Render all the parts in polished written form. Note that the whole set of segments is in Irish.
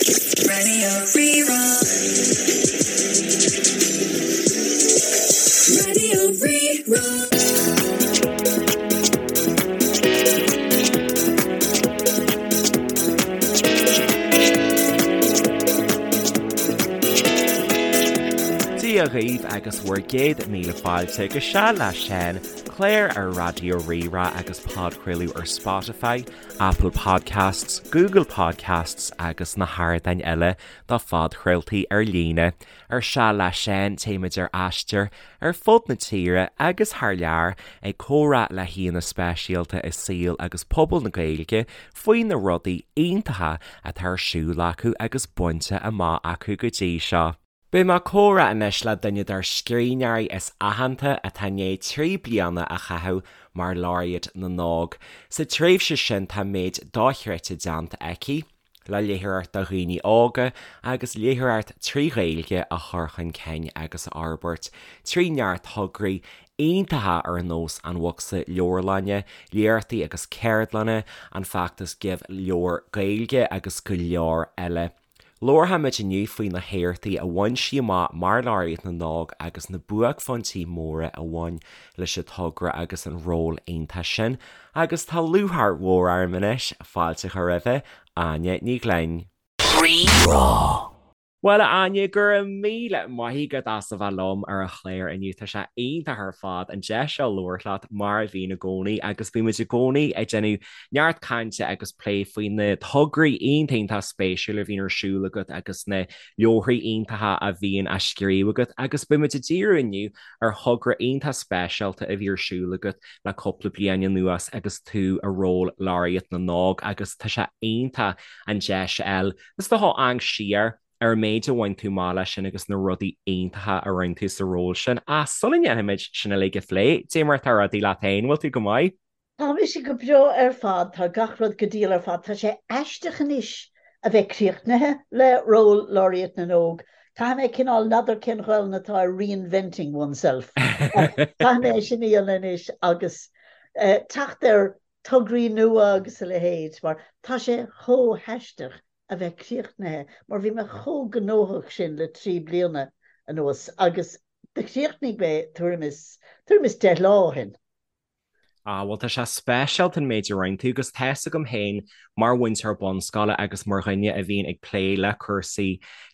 Radio Rí-Rá. Radio Rí-Rá. Dia dhaoibh agus bhur gcéad míle fáilte go Seal le Seán, clár ar Raidió Rí-Rá agus podchraoladh ar Spotify, Apple Podcasts, Google Podcasts agus na hardáin eile do phodchraoltaí ar líne. Ar Seal le Seán téimid ar aistear ar fud na tíre agus thar lear ag comhrá le haíonna speisialta i saol agus pobal na Gaeilge faoi na rudaí iontacha atá ar siúl acu agus bainte amach acu go dtí seo. Beidh mé ag comhrá anois le duine dár scríbhneoirí is aitheanta atá i ndiaidh 3 bliana a chaitheamh mar Laureate na nÓg. Sa tréimhse sin tá méid dochreidte déanta aici le léitheoireacht do dhaoine óga agus léitheoireacht trí Ghaeilge a chur chun cinn agus a fhorbairt trí neart tograí iontacha ar nós an Bhocsa Leabharlainne, léachtaí agus ceardlanna, an feachtas Give Leabhar Gaeilge agus go leor eile. Labharfaimid inniu faoi na héachtaí a bhain sí amach mar Laureate na nÓg agus na buaicphointí móra a bhain leis an togra agus an ról iontach sin agus tá lúcháir mhór orm anois fáilte a chur roimhe, Áine Ní Ghlinn. Rí-Rá. Bhuel, a Áine, go raibh míle maith agat as a bheith liom ar an chlár inniu. Tá sé iontach ar fad an deis seo labhairt leat mar a bhíonn i gcónaí agus bímid i gcónaí ag déanamh neart cainte agus plé faoi na tograí iontach iontach spéisiúil a bhíonn ar siúl agat agus na leabharthaí iontacha a bhíonn á scríobh agat agus beimid ag díriú inniu ar thogra iontach speisialta a bhí ar siúl agat le cúpla bliain anuas agus tú i ról Laureate na nÓg agus tá sé iontach an deis a fháil is dócha amharc siar ar an méid a bhain tú amach leis sin agus na rudaí iontacha a rinne tú sa ról sin. Ach sula ndéanfaimid sin uilig a phlé, dé mar atá rudaí leat féin, bhfuil tú go maith? Tá mise go breá ar fad, tá gach rud go diail ar fad. Tá sé aisteach anois a bheith críochnaithe le ról Laureate na nÓg. Caithfidh mé cineál, n'fheadar cén Ghaelainn atá ar reinventing oneself, ach caithfidh mé é sin a dhéanamh anois agus teacht ar tograí nua agus a leithéid mar tá sé chomh haisteach a bheith críochnaithe mar bhí mé chomh gnóthach sin le 3 bliana anuas agus do chríochnaigh mé tuairim is, tuairim is 10 lá ó shin. Ah, bhuel tá sé speisialta an méid a rinne tú agus tá's agam féin mar mhúinteoir bunscoile agus mar dhuine a bhíonn ag plé le cúrsaí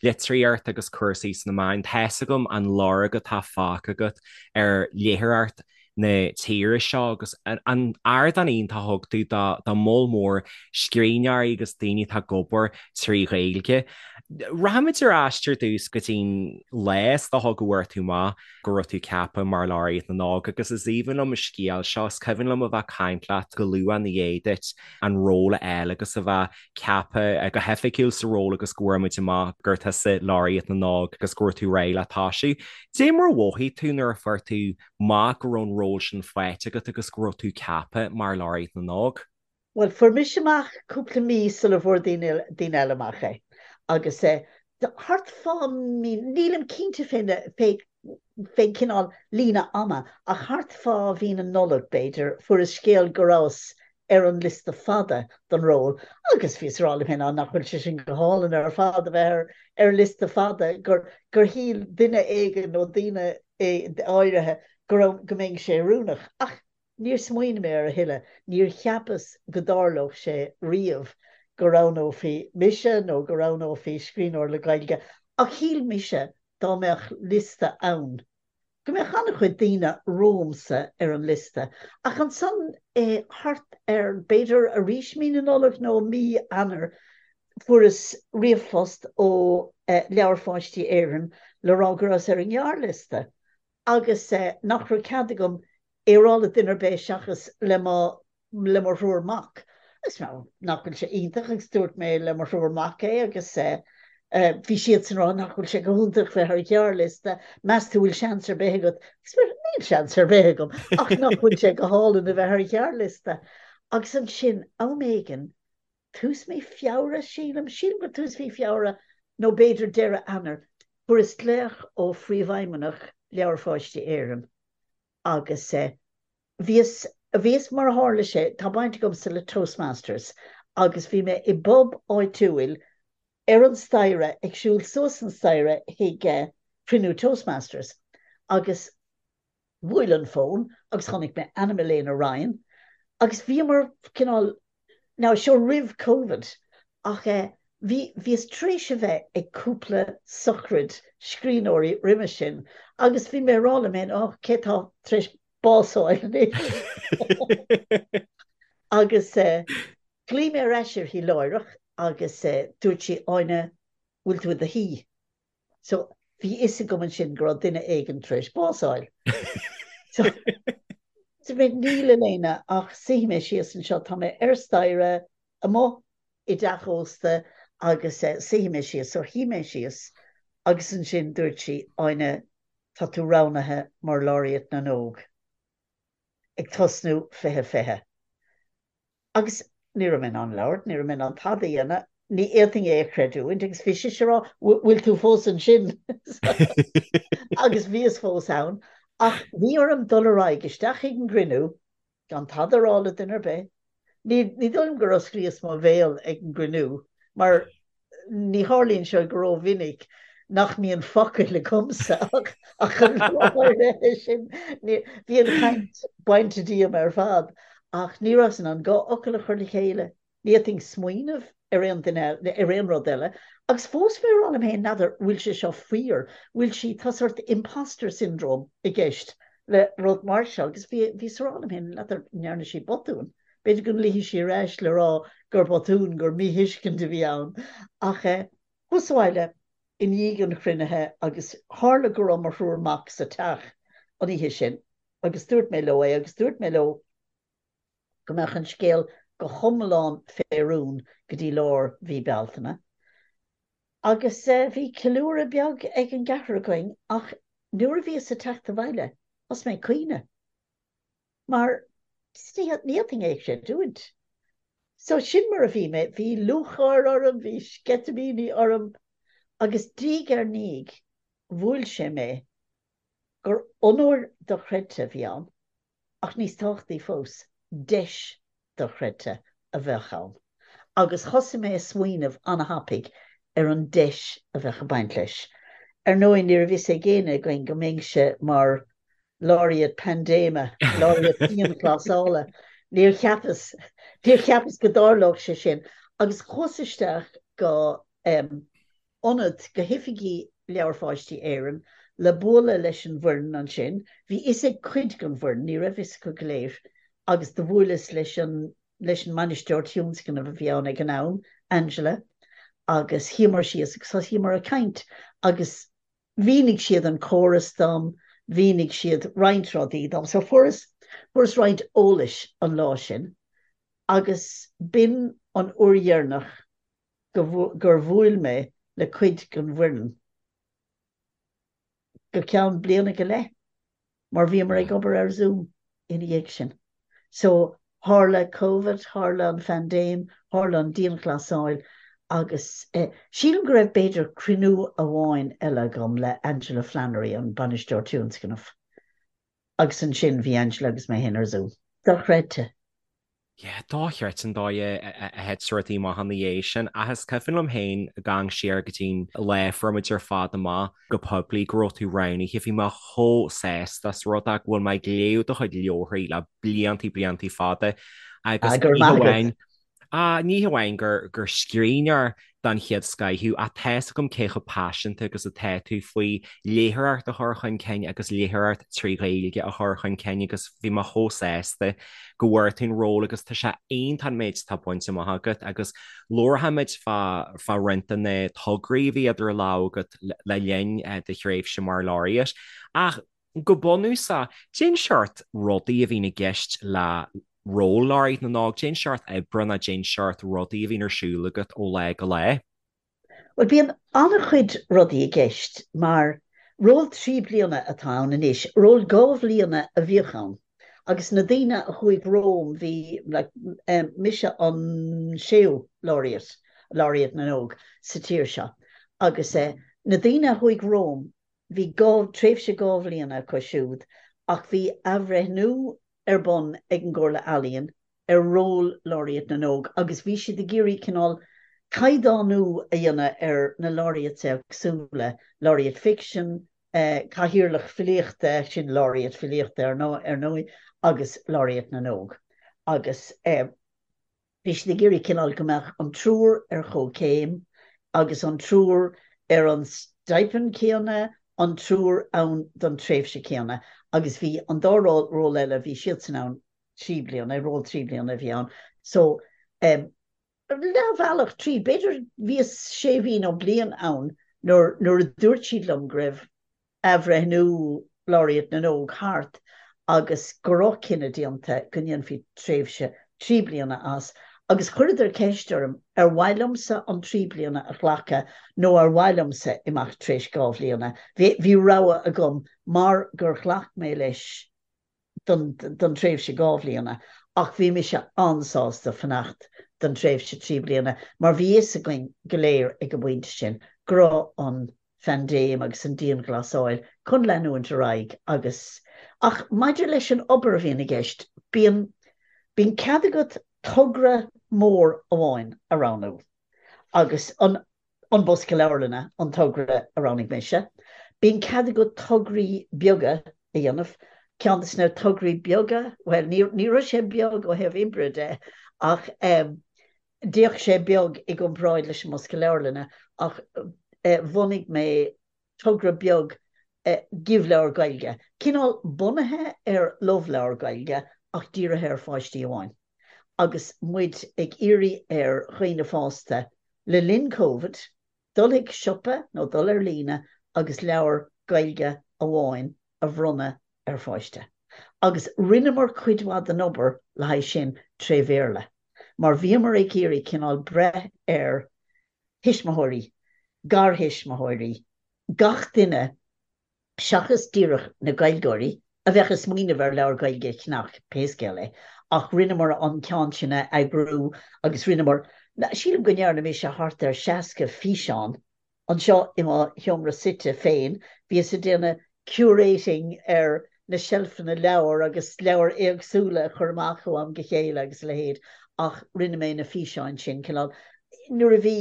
litríochta agus cúrsaí sna meáin, tá's agam an lorg atá fágtha agat ar léitheoireacht na tíre seo agus an ardán iontach a thug tú do moll mór scríbhneoirí agus daoine atá ag obair trí Ghaeilge. Rachaimid ar ais ar dtús go dtí'n lá is dócha go bhfuair tú amach go raibh tú ceaptha mar Laureate na nÓg agus is aoibhinn liom an scéal seo, is cuimhin liom a bheith ag caint leat go luath ina dhiaidh duit an ról a fháil agus a bheith ceaptha go hoifigiúil sa ról agus go bhfuair muid amach gur tusa Laureate na nÓg agus go raibh tú réidh le toisiú. Dé mar a mhothaigh tú nuair a fuair tú amach go raibh an ról sin faighte agat agus go raibh tú ceaptha mar Laureate na nÓg? Bhuel, fuair mise amach cúpla mí sula bhfuair daoine daoine eile amach é. Agus eh, thart fá mí, nílim cinnte fén fé fén cineál líne ama, ach thart fá mhí na Nollag, b'fhéidir, fuaireas scéal go rabhas ar an liosta fada don ról agus bhíos ag rá liom féin, á, nach bhfuil sé sin go hálainn ar fad a bheith ar ar liosta fada, gur gur shíl duine éigin nó daoine áirithe go raibh go mbeinnse oiriúnach. Ach Níor smaoinigh mé air a thuilleadh. Níor cheapas go dtarlódh sé riamh go roghnófaí mise nó go roghnófaí scríbhneoir le Gaeilge ach shíl mise dá mbeadh liosta ann go mbeadh an-chuid daoine romhamsa ar an liosta. Ach ansan thart ar, b'fhéidir arís mí na Nollag nó mí Eanáir, fuaireas ríomhphost ó Leabhair Pháistí Éireann le rá go rabhas ar an ngearrliosta. agus nach raibh cead agam é a rá le duine ar bith seachas le mo le mo thriúr mac. Agus nach bhfuil sé iontach agus dúirt mé le mo thriúr mac é agus bhí siadsan ag rá nach bhfuil sé go hiontach bheith ar ghearrliosta, meas tú bhfuil seans ar bith agat? Agus mé níl seans ar bith agam ach nach bhfuil sé go hálainn a bheith ar ghearrliosta. Agus ansin am éigin tús mí Feabhra, sílim, sílim gur tús mhí Feabhra nó b'fhéidir deireadh Eanáir, fuaireas glaoch ó Phríomhfheidhmeannach Leabhair Pháistí Éireann agus bhíos, bhíos, mar a tharla sé, tá baint agamsa le Toastmasters agus bhí mé i bpub áitiúil. Ar an staighre, ag siúl suas an staighre chuig cruinniú Toastmasters agus bhuail an fón agus chonaic mé ainm Elaina Ryan agus bhíomar cineál, now seo roimh Covid ach bhí, bhíos tar éis a bheith ag cúpla sochraid scríbhneoirí roimhe sin agus bhí mé ag rá liom féin, oh cé tá tar éis bás a fháil anois? Agus ghlaoigh mé ar ais uirthi láithreach agus dúirt sí, Áine, bhfuil tú i do shuí? So, bhí fhios agam ansin go raibh duine éigin tar éis bás a fháil. So, dúirt mé, níl, Elaina, ach suífidh mé síos anseo, tá mé ar staighre amuigh i dteach ósta agus suífidh mé síos. So, shuigh mé síos agus ansin dúirt sí, Áine, tá tú roghnaithe mar Laureate na nÓg ag tosnú 2020. Agus ní raibh mé in ann labhairt, ní raibh mé in ann tada a dhéanamh, ní fhéadfainn é a chreidiúint agus bhí sise ag rá, bhfuil tú fós ansin? Agus bhíos fós ann. Ach bhí orm dul ar aghaidh isteach chuig an gcruinniú gan tada a rá le duine ar bith. Ní dóigh liom gur osclaíos mo bhéal ag an gcruinniú mar Ní tharlaíonn sé go rómhinic nach mbíonn focail agamsa ach an lá áirithe sin bhí an chaint bainte díom ar fad ach ní rabhas in ann dhá fhocal a chur le chéile. Ní fhéadfainn smaoineamh ar aon duine eile, ar aon rud eile. Agus fós bhí mé ag rá liom féin, n'fheadar, bhfuil sé seo fíor, bhfuil sí, tá sórt imposter syndrome i gceist le rud mar seo agus bhí, bhíos ag rá liom féin, n'fheadar, an ndearna sí botún. B'fhéidir go nglaofaidh sí ar ais le rá gur botún, gur míthuiscint a bhí ann. Ach chuas abhaile i ndiaidh an chruinnithe agus tharla go raibh mo thriúr mac sa teach an oíche sin agus dúirt mé leo é agus dúirt mé leo go mbeadh an scéal go hiomlán fé rún go dtí lár mhí Bealtaine. Agus bhí ceiliúradh beag ag an gceathrar againn ach nuair a bhíos ag teacht abhaile thosaigh mé ag caoineadh. Mar ní fhéadfainn é a chreidiúint. So sin mar a bhí mé, bhí lúcháir orm, bhí sceitimíní orm agus diaidh ar ndiaidh bhuail sé mé gur onóir dochreidte a bhí ann ach níos tábhachtaí fós, deis dochreidte a bheadh ann. Agus thosaigh mé ag smaoineamh an-thapaidh ar an deis a bheadh ag baint leis. Ar ndóigh, ní raibh fhios ag éinne againn go mbeinnse mar Laureate Paindéime, Laureate Dianghlasála. Níor cheapas, níor cheapas go dtarlódh sé sin. Agus chuas isteach go ionad, go hoifigí Leabhair Pháistí Éireann le bualadh leis an bhfoireann ansin. Bhí fhios ag cuid den bhfoireann, ní raibh fhios acu go léir, agus do bhuaileas leis an leis an mbainisteoir tionscnaimh a bhí ann ag an am, Angela, agus shuíomar síos agus thosaíomar ag caint agus mhínigh siad an córas dom, mhínigh siad roinnt rudaí dom. So fuaireas, fuaireas roinnt eolais an lá sin agus b'in an uair dheireanach go, gur bhuail mé le cuid den bhfoireann go ceann bliana go leith mar bhíomar ag obair ar Zoom ina dhiaidh sin. So tharla Covid, tharla an phaindéim, tharla an dianghlasáil agus eh, sílim go raibh b'fhéidir cruinniú amháin eile agam le Angela Flannery, an bainisteoir tionscnaimh. Agus ansin bhí Angela agus mé féin ar Zoom. Dochreidte. Yeah, dochreidte an dóigh a thit rudaí amach ina dhiaidh sin. Ach is cuimhin liom féin ag amharc siar go dtí'n lá a fuair muid ar fad amach go poiblí go raibh tú roghnaithe. Bhí mé chomh sásta as rud é go bhfuil mé ag léamh do chuid leabharthaí le bliantaí bliantaí fada agus Ah, go raibh ní maith agat. hamháin Ah, ní hamháin gur gur scríbhneoir den chéad scoth thú, ach tá's agam cé chomh paiseanta agus atá tú faoi léitheoireacht a chur chun cinn agus léitheoireacht trí Ghaeilge a chur chun cinn agus bhí mé chomh sásta go bhfuair tú an ról agus tá sé iontach an méid atá bainte amach agat agus labharfaimid fá fá roinnt de na tograí a bhí idir lámha agat le linn do thréimhse mar Laureate. Ach go bunúsach, cén seort rudaí a bhíonn i gceist le ról Laureate na nÓg, cén seort oibre nó cén seort rudaí a bhíonn ar siúl agat ó lá go lá? Bhuel, bíonn an-chuid rudaí i gceist mar ról 3 bliana atá ann anois. Ról 2 bhliana a bhíodh ann agus na daoine a chuaigh romham, bhí, like, mise an séú Laureate, Laureate na nÓg sa tír seo agus na daoine a chuaigh romham, Bhí tréimhse 2 bhliana acu siúd ach bhí athbhreithniú ar bun ag an gComhairle Ealaíon ar ról Laureate na nÓg agus bhí siad ag iarraidh cineál. caighdeánú a dhéanamh ar na laureates éagsúla, laureate ficsin, cathaoirleach filíochta, sin laureate filíochta ar ndóigh, agus laureate na nÓg. Agus bhí siad ag iarraidh cineál go mbeadh an triúr ar chomhchéim agus an triúr ar an stipend céanna, an triúr ann don tréimhse céanna agus bhí an dá ról eile, bhí siadsan ann 3 bliana, ról 3 bliana a bhí ann. So, leathbhealach tríd, b'fhéidir bhíos sé mhí nó bliain ann nuair nuair a dúirt siad liom go raibh athbhreithniú Laureate na nÓg thart agus go raibh cinneadh déanta go ndéanfaí tréimhse 3 bliana as agus chuireadar ceist orm ar mhaith liomsa an 3 bliana a ghlacadh nó ar mhaith liomsa imeacht tar éis 2 bhliana. Bhí bhí rogha agam mar gur ghlac mé leis don tréimhse 2 bhliana ach bhí mise an-sásta fanacht don tréimhse 3 bliana mar bhí fhios againn go léir ag an bpointe sin go raibh an phaindéim agus an dianghlasáil chun leanúint ar aghaidh agus ach maidir leis an obair a bhíonn i gceist bíonn bíonn cead agat togra mór amháin a roghnú agus an An Bosca Leabharlainne an togra a roghnaigh mise. Bíonn cead agat tograí beaga a dhéanamh. Ceann de na tograí beaga, bhuel, ní ní raibh sé beag ó thaobh oibre de ach d'fhéach sé beag i gcomparáid leis an mBosca Leabharlainne ach bhunaigh mé togra beag Give Leabhar Gaeilge, cineál bunaithe ar Love Leabhar Gaeilge ach dírithe ar pháistí amháin. Agus muid ag iarraidh ar dhaoine fásta le linn Covid dul chuig siopa nó dul ar líne agus leabhar Gaeilge amháin a bhronnadh ar pháiste. Agus rinneamar cuid mhaith den obair le haghaidh sin tré Bhéarla mar bhíomar ag iarraidh cineál breith ar thuismitheoirí, garthuismitheoirí, gach duine seachas díreach na Gaeilgeoirí a bheadh ag smaoineamh ar leabhar Gaeilge a cheannach pé scéal é, ach rinneamar an ceann sin a eagrú agus rinneamar, sílim go ndearna mise thart ar 60 físeán anseo i mo sheomra suite féin, bhíos ag déanamh curating ar na seilfeanna leabhar agus leabhair éagsúla a chur amach ó am go chéile agus a leithéid ach rinne mé na físeáin sin cineál nuair a bhí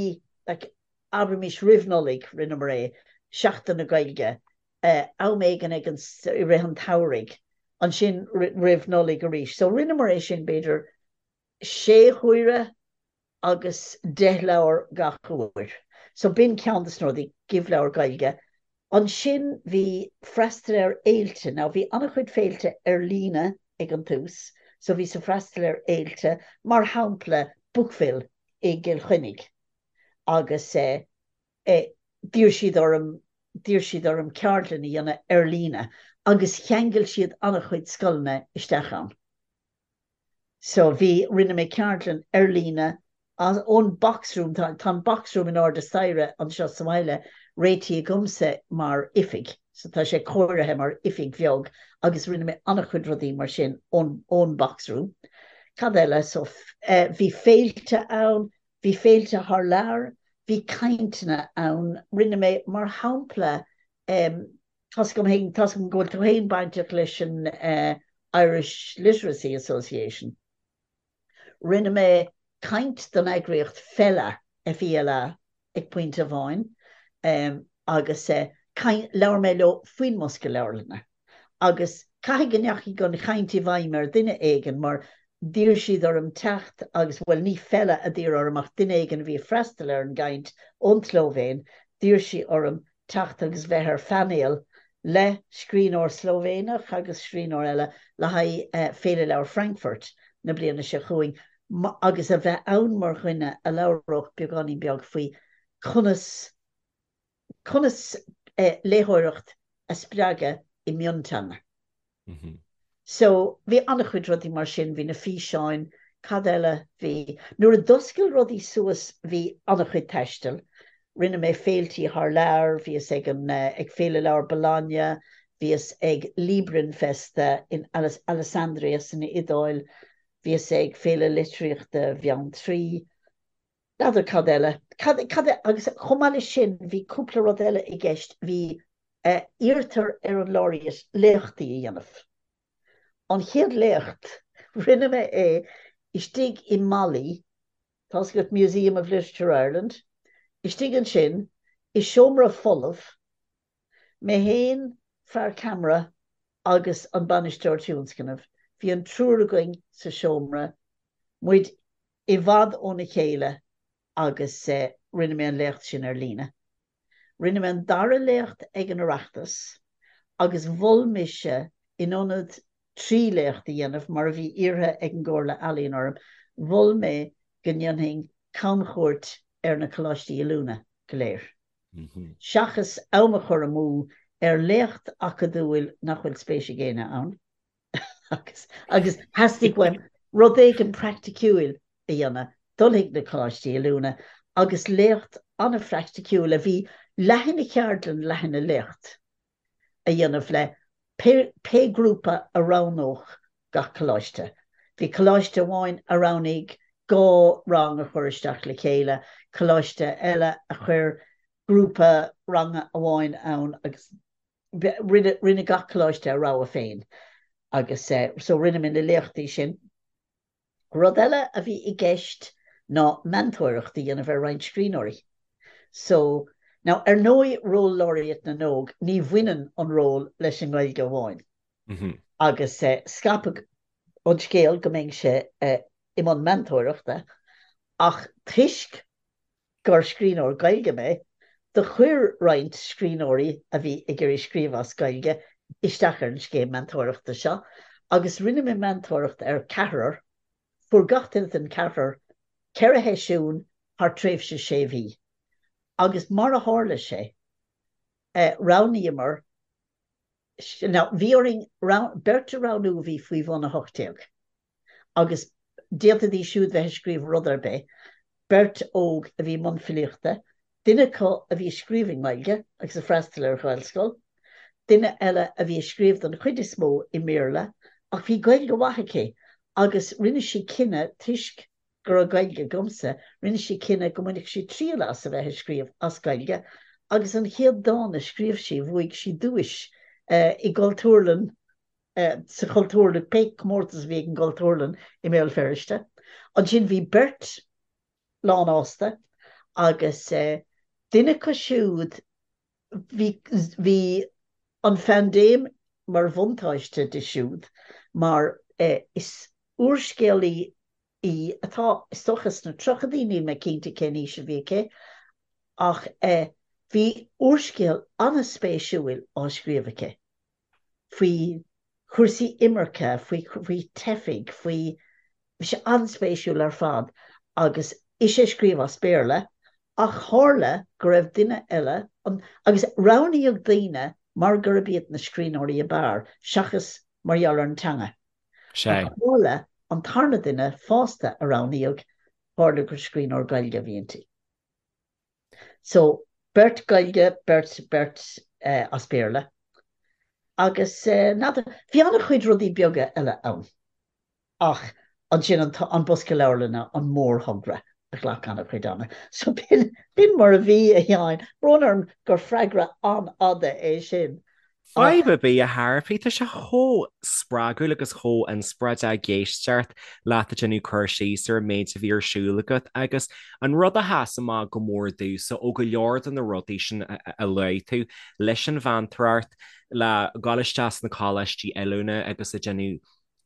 like abraimis roimh Nollaig rinneamar é, Seachtain na Gaeilge, am éigin ag an i rith an tsamhraidh, ansin roimh Nollaig arís. So rinneamar é sin b'fhéidir sé huaire agus 10 leabhar gach uair. So b'in ceann de na rudaí, Give Leabhar Gaeilge. Ansin bhí freastal ar fhéilte. Now bhí an-chuid féilte ar líne ag an tús, so bhíos ag freastal ar fhéilte, mar shampla Bookville i gCill Chainnigh agus eh d'iarr siad orm, d'iarr siad orm ceardlann a dhéanamh ar líne agus cheangail siad an-chuid scoileanna isteach ann. So bhí, rinne mé ceardlann ar líne as, ón box room, tá, tá an box room in airde staighre anseo sa bhaile réitithe agamsa mar oifig, so tá sé cóirithe mar oifig bheag agus rinne mé an-chuid rudaí mar sin ón, ón box room. Cad eile? So eh bhí féilte ann, bhí féilte thar lear, bhí cainteanna ann, rinne mé mar shampla em, Tá's agam féin, tá's agam go bhfuil tú féin bainteach leis an Irish Literacy Association. Rinne mé caint don eagraíocht FELA, F-E-L-A, ag pointe amháin agus caint, labhair mé leo faoin mbosca leabharlainne agus caithfidh go ndeachaigh an chaint i bhfeidhm ar dhuine éigin mar d'iarr siad orm teacht agus, bhuel ní FELA a d'iarr orm ach duine éigin a bhí ag freastal ar an gcaint ón tSlóivéin, d'iarr sí orm teacht agus bheith ar phainéal le scríbhneoir Slóivéineach agus scríbhneoir eile le haghaidh Féile Leabhar Frankfurt na bliana seo chugainn agus a bheith ann mar dhuine a labhródh beagáinín beag faoi conas conas léitheoireacht a spreagadh i mionteanga. So, bhí an-chuid rudaí mar sin, bhí na físeáin, cad eile bhí, nuair a d'oscail rudaí suas bhí an-chuid taistil, rinne mé féiltí thar lear, bhíos ag an, ag Féile Leabhar Bologna, bhíos ag Librinfesta in Alessandria san Iodáil, bhíos ag Féile Litríochta Bheanntraí, N'fheadar cad eile. Cad, cad, agus chomh maith leis sin, bhí cúpla rud eile i gceist, bhí, eh, iarrtar ar an Laureate léachtaí a dhéanamh. An chéad léacht, rinne mé é istigh i mBali. Tá's agat Museum of Literature Ireland, istigh ansin i seomra folamh, mé féin, fear ceamara agus an bainisteoir tionscnaimh, bhí an triúr againn sa seomra, muid i bhfad óna chéile agus rinne mé an léacht sin ar líne. Rinne mé an dara léacht ag an Oireachtas agus mhol mise in ionad 3 léacht a dhéanamh, mar a bhí iarrtha ag an gComhairle Ealaíon orm, mhol mé go ndéanfainn camchuairt ar na coláistí oiliúna go léir. Seachas am a chur amú ar léacht acadúil nach bhfuil spéis ag éinne ann. agus agus theastaigh uaim rud éigin praiticiúil a dhéanamh, dul chuig na coláistí oiliúna agus léacht an-phraiticiúil a bhí leath ina cheardlann, leath ina léacht a dhéanamh le pé pé grúpa a roghnódh gach coláiste. Bhí coláiste amháin a roghnaigh 2 rang a chur isteach le chéile, coláiste eile a chuir grúpa ranga amháin ann agus Rinne, rinne gach coláiste a rogha féin agus so rinne mé na léachtaí sin. Rud eile a bhí i gceist ná meantóireacht a dhéanamh ar roinnt scríbhneoirí. So, now ar ndóigh ról Laureate na nÓg, ní bhaineann an ról leis an nGaeilge amháin. Agus scaipeadh an scéal go mbeinnse i mbun meantóireachta ach toisc gur scríbhneoir Gaeilge mé, do chuir roinnt scríbhneoirí a bhí ag iarraidh scríobh as Gaeilge isteach ar an scéim meantóireachta seo agus rinne mé meantóireacht ar ceathrar, fuair gach duine den ceathrar 4 sheisiún thar tréimhse sé mhí agus mar a tharla sé, roghnaíomar, now bhí orainn beirt a roghnú a bhí faoi bhun 18 agus d'fhéadfaidís siúd bheith ag scríobh rud ar bith, beirt óg a bhí i mbun filíochta, duine acu a bhí ag scríobh i nGaeilge agus ag freastal ar Ghaelscoil, duine eile a bhí ag scríobh don chuid is mó i mBéarla ach bhí Gaeilge mhaith aici agus rinne sí cinneadh toisc go raibh Gaeilge agamsa, rinne sí cinneadh go mbainfeadh sí triail as a bheith ag scríobh as Gaeilge agus an chéad dán a scríobh sí bhuaigh sí duais i gCultúrlann sa Chultúrlann, pé comórtas a bhí ag an gCultúrlann i mBéal Feirste. Ansin bhí beirt lánfhásta agus duine acu siúd, bhí, bhí an phaindéim mar bhuntáiste di siúd mar is úrscéalaí í atá, is dócha, sna tríochaidí, níl mé cinnte cén aois a bhí aici, ach bhí úrscéal an-spéisiúil á scríobh aici. faoi chúrsaí imirce, faoi faoi teifigh, faoi, bhí sé an-spéisiúil ar fad agus ise ag scríobh as Béarla ach tharla go raibh duine eile an, agus roghnaíodh daoine mar gurb iad na scríbhneoirí ab fhearr seachas mar gheall ar an teanga. Sea. Ach tharla an tarna duine fosta a roghnaíodh, tharla gur scríbhneoir Gaeilge a bhí inti. So, beirt Gaeilge, beirt, beirt as Béarla. Agus n'fheadar, bhí an-chuid rudaí beaga eile ann. Ach ansin an, an Bosca Leabharlainne, an mórthogra a ghlac an-chuid ama. So b'in, b'in mar a bhí, a Sheáin. Brón orm gur freagra an-fhada é sin. Fadhb ar bith, a Shearphaí, tá sé chomh spreagúil agus chomh inspioráideach ag éisteacht leat ag déanamh cur síos ar an méid a bhí ar siúl agat agus an rud a sheas amach go mór domhsa ó go leor de na rudaí sin a luaigh tú, leis an mheantóireacht, le dhul isteach sna coláistí oiliúna agus ag déanamh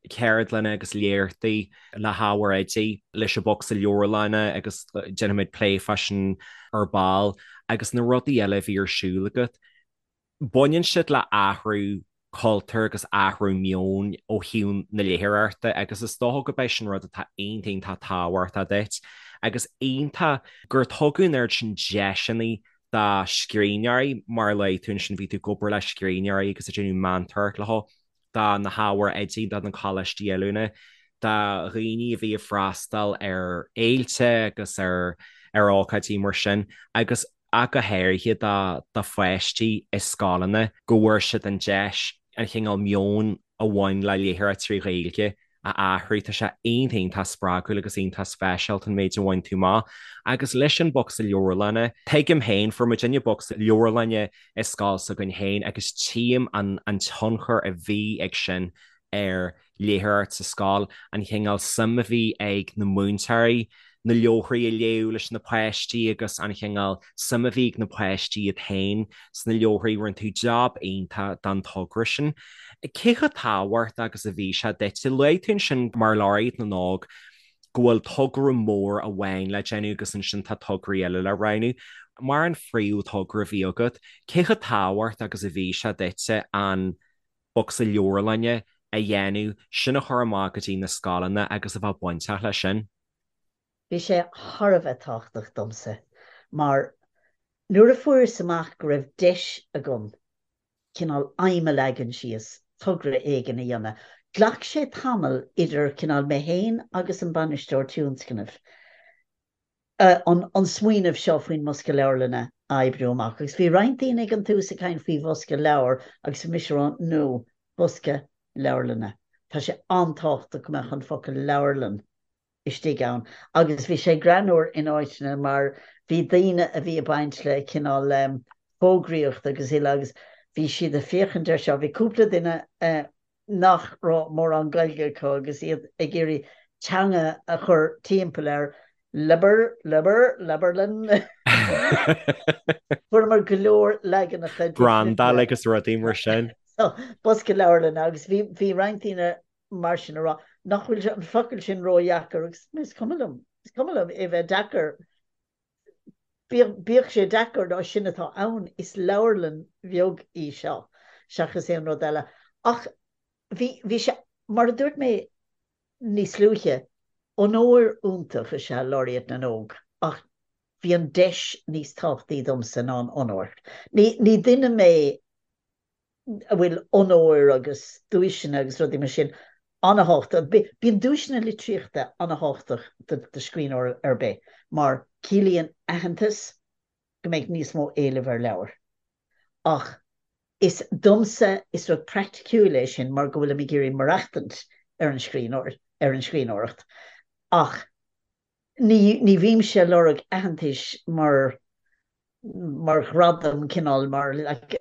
ceardlanna agus léachtaí le hábhair oidí, leis an bhocsa leabharlainne agus déanfaimid plé fá sin ar ball agus na rudaí eile a bhí ar siúl agat. Baineann siad le athrú cultúir agus athrú meoin ó thaobh na léitheoireachta agus is dócha gurb é sin rud atá iontach iontach tábhachtach duit agus iontach gur tugadh an oiread sin deiseanna do scríbhneoirí mar a luaigh tú ansin bhí tú ag obair le scríbhneoirí agus ag déanamh meantóireacht leo do na hábhair oidí, do na coláistí oiliúna, do dhaoine a bhí ag freastal ar fhéilte agus ar ar ócáidí mar sin agus ach go háirithe do pháistí i scoileanna, go bhfuair siad an deis an chineál meoin a bhain le léitheoireacht trí Ghaeilge a athrú. Tá sé iontach iontach spreagúil agus iontach speisialta an méid a bhain tú amach. Agus leis an bocsa leabharlainne, tuigim féin, fuair muidinne bocsa leabharlainne i scoil s'againn féin agus tchím an an tionchar a bhí ag sin ar léitheoireacht sa scoil, an chineál suim a bhí ag na múinteoirí. na leabharthaí a léamh leis na páistí agus an chineál suim a bhí ag na páistí iad féin sna leabharthaí. Rinne tú jab iontach don togra sin. Cé chomh tábhachtach agus a bhí sé duit? Luaigh tú ansin mar Laureate na nÓg go bhfuil togra mór amháin le déanamh agus ansin tá tograí eile le roghnú. Mar an phríomh-thogra a bhí agat, cé chomh tábhachtach agus a bhí sé duitse an bocsa leabharlainne a dhéanamh, sin a chur amach go dtí na scoileanna agus a bheith bainteach leis sin? Bhí sé thar a bheith tábhachtach domsa mar nuair a fuaireas amach go raibh deis agam cineál aidhm a leagan síos, togra éigin a dhéanamh, ghlac sé tamall idir cineál mé féin agus an bainisteoir tionscnaimh an smaoineamh seo faoin mbosca leabharlainne a oibriú amach. Agus bhí roinnt daoine ag an tús ag caint faoi bhosca leabhar agus bhí mise ag rá no, bosca leabharlainne. Tá sé an-tábhachtach go mbeadh an focal leabharlann istigh ann. Agus bhí sé greannmhar in áiteanna mar bhí daoine a bhí ag baint le cineál fógraíocht agus uile agus bhí siad ag féachaint air seo. Bhí cúpla duine nach raibh mórán Gaeilge acu agus iad ag iarraidh teanga a chur timpeall ar leabhar, leabhar, leabharlann. Fuaireamar go leor leaganacha difriúla. Brandáil agus rudaí mar sin. Bosca leabharlainne agus bhí roinnt daoine mar sin ag rá nach bhfuil an focal sin ródheacair agus is cuma liom, is cuma liom é bheith deacair. Bíodh sé deacair nó sin atá ann, is leabharlann bheag í seo seachas aon rud eile. Ach bhí, bhí sé, mar a dúirt mé níos luaithe, onóir iontach is ea Laureate na nÓg ach bhí an deis níos tábhachtaí domsa ná an onóir. Ní, ní duine mé a bhfuil onóir agus duaiseanna agus rudaí mar sin an-thábhachtach. Bíonn duaiseanna litríochta an-thábhachtach do scríbhneoir ar bith mar ciallaíonn aitheantas go mbeidh níos mó éilimh ar leabhair. Ach is domsa is rud praiticiúil é sin mar go bhfuilim ag iarraidh maireachtaint ar an scríbhneoir, ar an scríbhneoireacht. Ach ní, ní bhímse ag lorg aitheantais mar mar ghradam, cineál mar, like,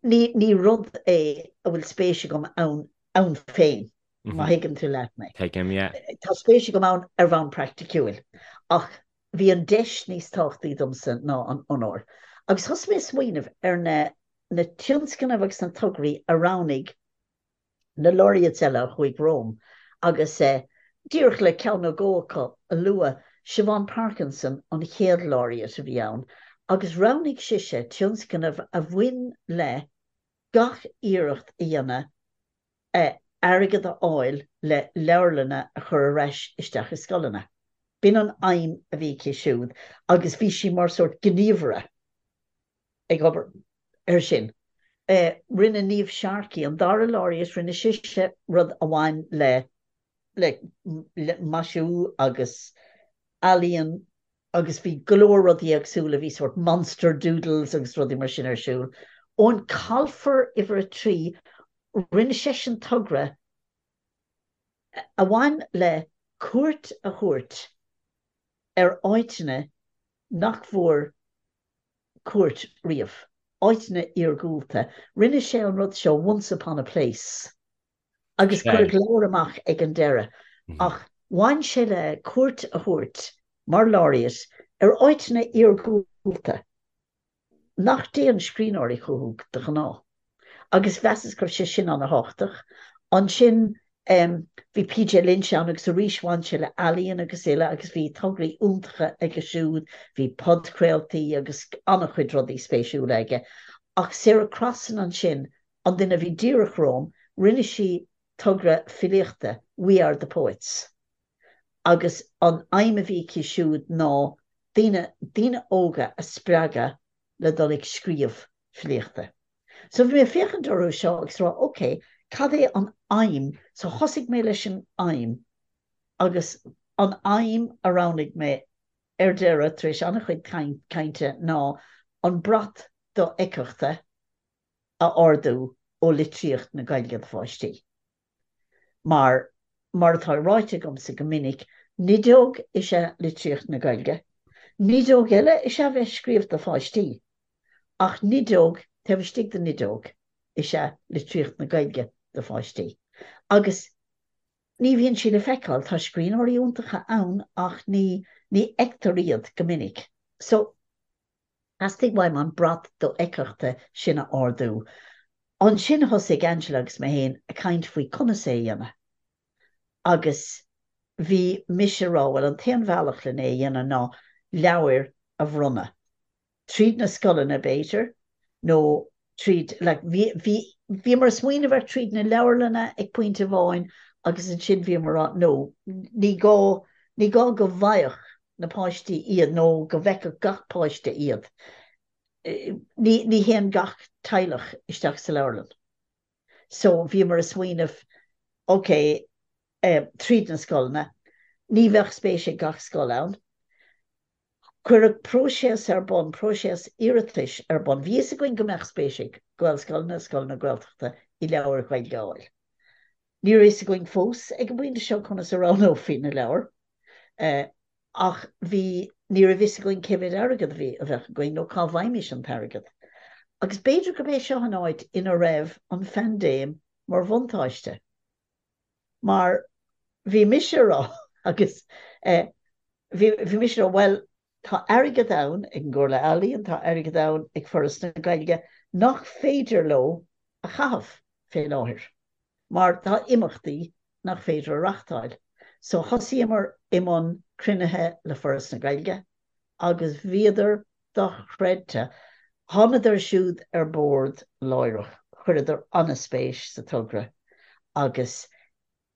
ní, ní rud é a bhfuil spéis agam ann, ann féin, má thuigeann tú leat mé. Tuigim, yeah. Tá spéis agam ann ar bhonn praiticiúil, ach bhí an deis níos tábhachtaí domsa ná an onóir. Agus thosaigh mé ag smaoineamh ar na, na tionscnaimh agus na tograí a roghnaigh na laureates eile a chuaigh romham agus díreach le ceann nó dhó acu a lua, Siobhán Parkinson an chéad laureate a bhí ann agus roghnaigh sise tionscnamh a bhain le gach iarracht a dhéanamh airgead a fháil le leabharlanna a chur ar ais isteach i scoileanna. B'in an aidhm a bhí aici siúd agus bhí sí mar sórt gníomhaire. ag obair air sin. Rinne Niamh Sharkey, an dara laureate, rinne sise rud a bhain le le maisiú agus ealaíon agus bhí go leor rudaí éagsúla, bhí sórt monster doodles agus rudaí mar sin ar siúl. Eoin Colfer, uimhir a 3, rinne seisean togra a bhain le cuairt a thabhairt ar áiteanna nach bhfuair cuairt riamh. Áiteanna iargúlta. Rinne sé an rud seo Once Upon a Place agus cuireadh leabhar amach ag an deireadh. Ach bhain sé le cuairt a thabhairt mar laureate ar áiteanna iargúlta nach dtéann scríbhneoirí chucu de ghnáth. Agus mheasas go raibh sé sin an-thábhachtach. Ansin bhí PJ Lynch ann agus arís bhain sé le ealaíon agus uile agus bhí tograí iontacha aige siúd, bhí podchraoltaí agus an-chuid rudaí spéisiúla aige. Ach Sarah Crossan ansin, an duine a bhí díreach romham, rinne sí togra filíochta, We Are The Poets. Agus an aidhm a bhí aici siúd ná daoine, daoine óga a spreagadh le dul ag scríobh filíochta. So bhí mé ag féachaint orthu seo agus rá ok, cad é an aidhm? So thosaigh mé leis an aidhm agus an aidhm a roghnaigh mé ar deireadh, tar éis an-chuid cainte, ná an brat dofheictheachta a ardú ó litríocht na Gaeilge do pháistí. Mar, mar atá ráite agamsa go minic, nideog is ea litríocht na Gaeilge. Nideog eile is ea bheith ag scríobh do pháistí. Ach nideog taobh istigh de nideog is ea litríocht na Gaeilge do pháistí. Agus. Ní bhíonn sí le feiceáil. Tá scríbhneoirí iontacha ann ach ní ní fheictear iad go minic. So, theastaigh uaim an brat dofheictheachta sin a ardú. Ansin thosaigh Angela agus mé féin ag caint faoi conas é a dhéanamh. Agus bhí mise ag rá, bhuel an t-aon bhealach len é a dhéanamh ná leabhair a bhronnadh. Tríd na scoileanna, b'fhéidir, nó tríd, like, bhí, bhí, bhíomar ag smaoineamh ar tríd na leabharlanna ag pointe amháin agus ansin bhíomar ag rá, no, ní gá, ní gá go bhfaigheadh na páistí iad nó go bhfeicfeadh gach páiste iad. Ní, ní théann gach teaghlach isteach sa leabharlann. So bhíomar ag smaoineamh, ok, eh, tríd na scoileanna, ní bheadh spéis ag gach scoil ann. Cuireadh próiseas ar bun, próiseas iarratais ar bun. Bhí fhios againn go mbeadh spéis ag Gaelscoileanna, scoileanna Gaeltachta i leabhair Ghaeilge a fháil. Ní raibh fhios againn fós ag an bpointe seo conas a roghnófaí na leabhair, ach bhí, ní raibh fhios againn cé mhéad airgead a bhí, a bheadh againn nó cá bhfaighimis an t-airgead. Agus b'fhéidir gurb é seo an áit ina raibh an phaindéim mar bhuntáiste. Mar bhí mise a rá agus bhí bhí mise a rá bhuel tá airgead ann ag an gComhairle Ealaíon, tá airgead ann ag Foras na Gaeilge nach féidir leo a chaitheamh fé láthair mar tá imeachtaí nach féidir a reachtáil. So thosaíomar i mbun cruinnithe le Foras na Gaeilge agus bhíodar dochreidte. Thánadar siúd ar bord láithreach, chuireadar an-spéis sa togra agus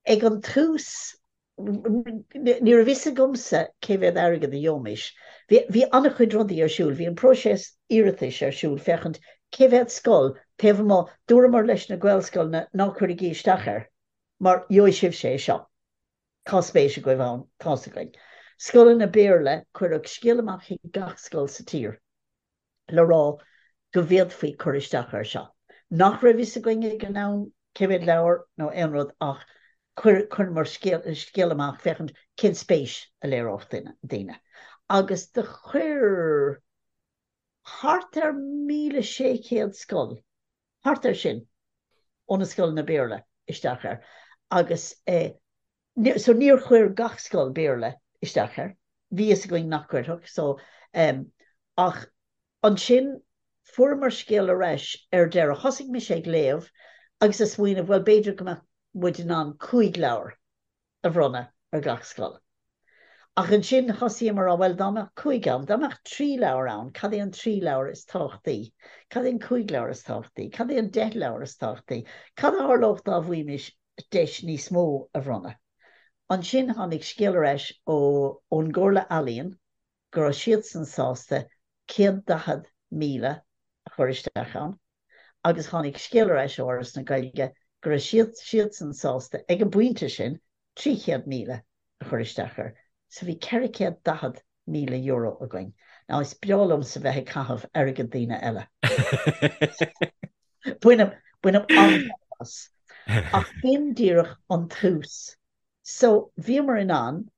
ag an tús ní raibh fhios agamsa cé mhéad airgead a gheobhaimis. Bhí an-chuid rudaí ar siúl, bhí an próiseas iarratais ar siúl féachaint cé mhéad scoil taobh amuigh, dúramar leis na Gaelscoileanna ná cuirigí isteach air mar gheobhaidh sibhse é seo. Tá spéis agaibh ann, tá's againn. Scoileanna Béarla, cuireadh scéal amach chuig gach scoil sa tír le rá go bhféadfaí cur isteach air seo. Nach raibh fhios againn ag an am cé mhéad leabhar nó aon rud ach chuireamar scéal amach féachaint cén spéis a léireodh daoine. Agus do chuir thart ar 1,600 scoil thart air sin ó na scoileanna Béarla isteach air agus so níor chuir gach scoil Béarla isteach air, bhí fhios againn nach gcuirfeadh so ach ansin fuaireamar scéal ar ais ar deireadh, thosaigh mise ag léamh agus ag smaoineamh bhuel b'fhéidir go mbeadh muid in ann 5 leabhar a bhronnadh ar gach scoil. Ach ansin thosaíomar a rá, bhuel, dá mbeadh 5 ann, dá mbeadh 3 leabhar ann, cad é an 3 leabhar is tábhachtaí? Cad é an 5 leabhar is tábhachtaí? Cad é an 10 leabhar is tábhachtaí? Cad a tharlódh dá bhfaighimis deis níos mó a bhronnadh? Ansin tháinig scéal ar ais ó ón gComhairle Ealaíon go raibh siadsan sásta 140,000 a chur isteach ann agus tháinig scéal ar ais ó Fhoras na Gaeilge go raibh siad siadsan sásta ag an bpointe sin 300,000 a chur isteach air. So bhí €440,000 againn. Now is breá liomsa bheith ag caitheamh airgead daoine eile. Bainim, bainim an-taitneamh as. Ach b'in díreach an tús. So bhíomar in ann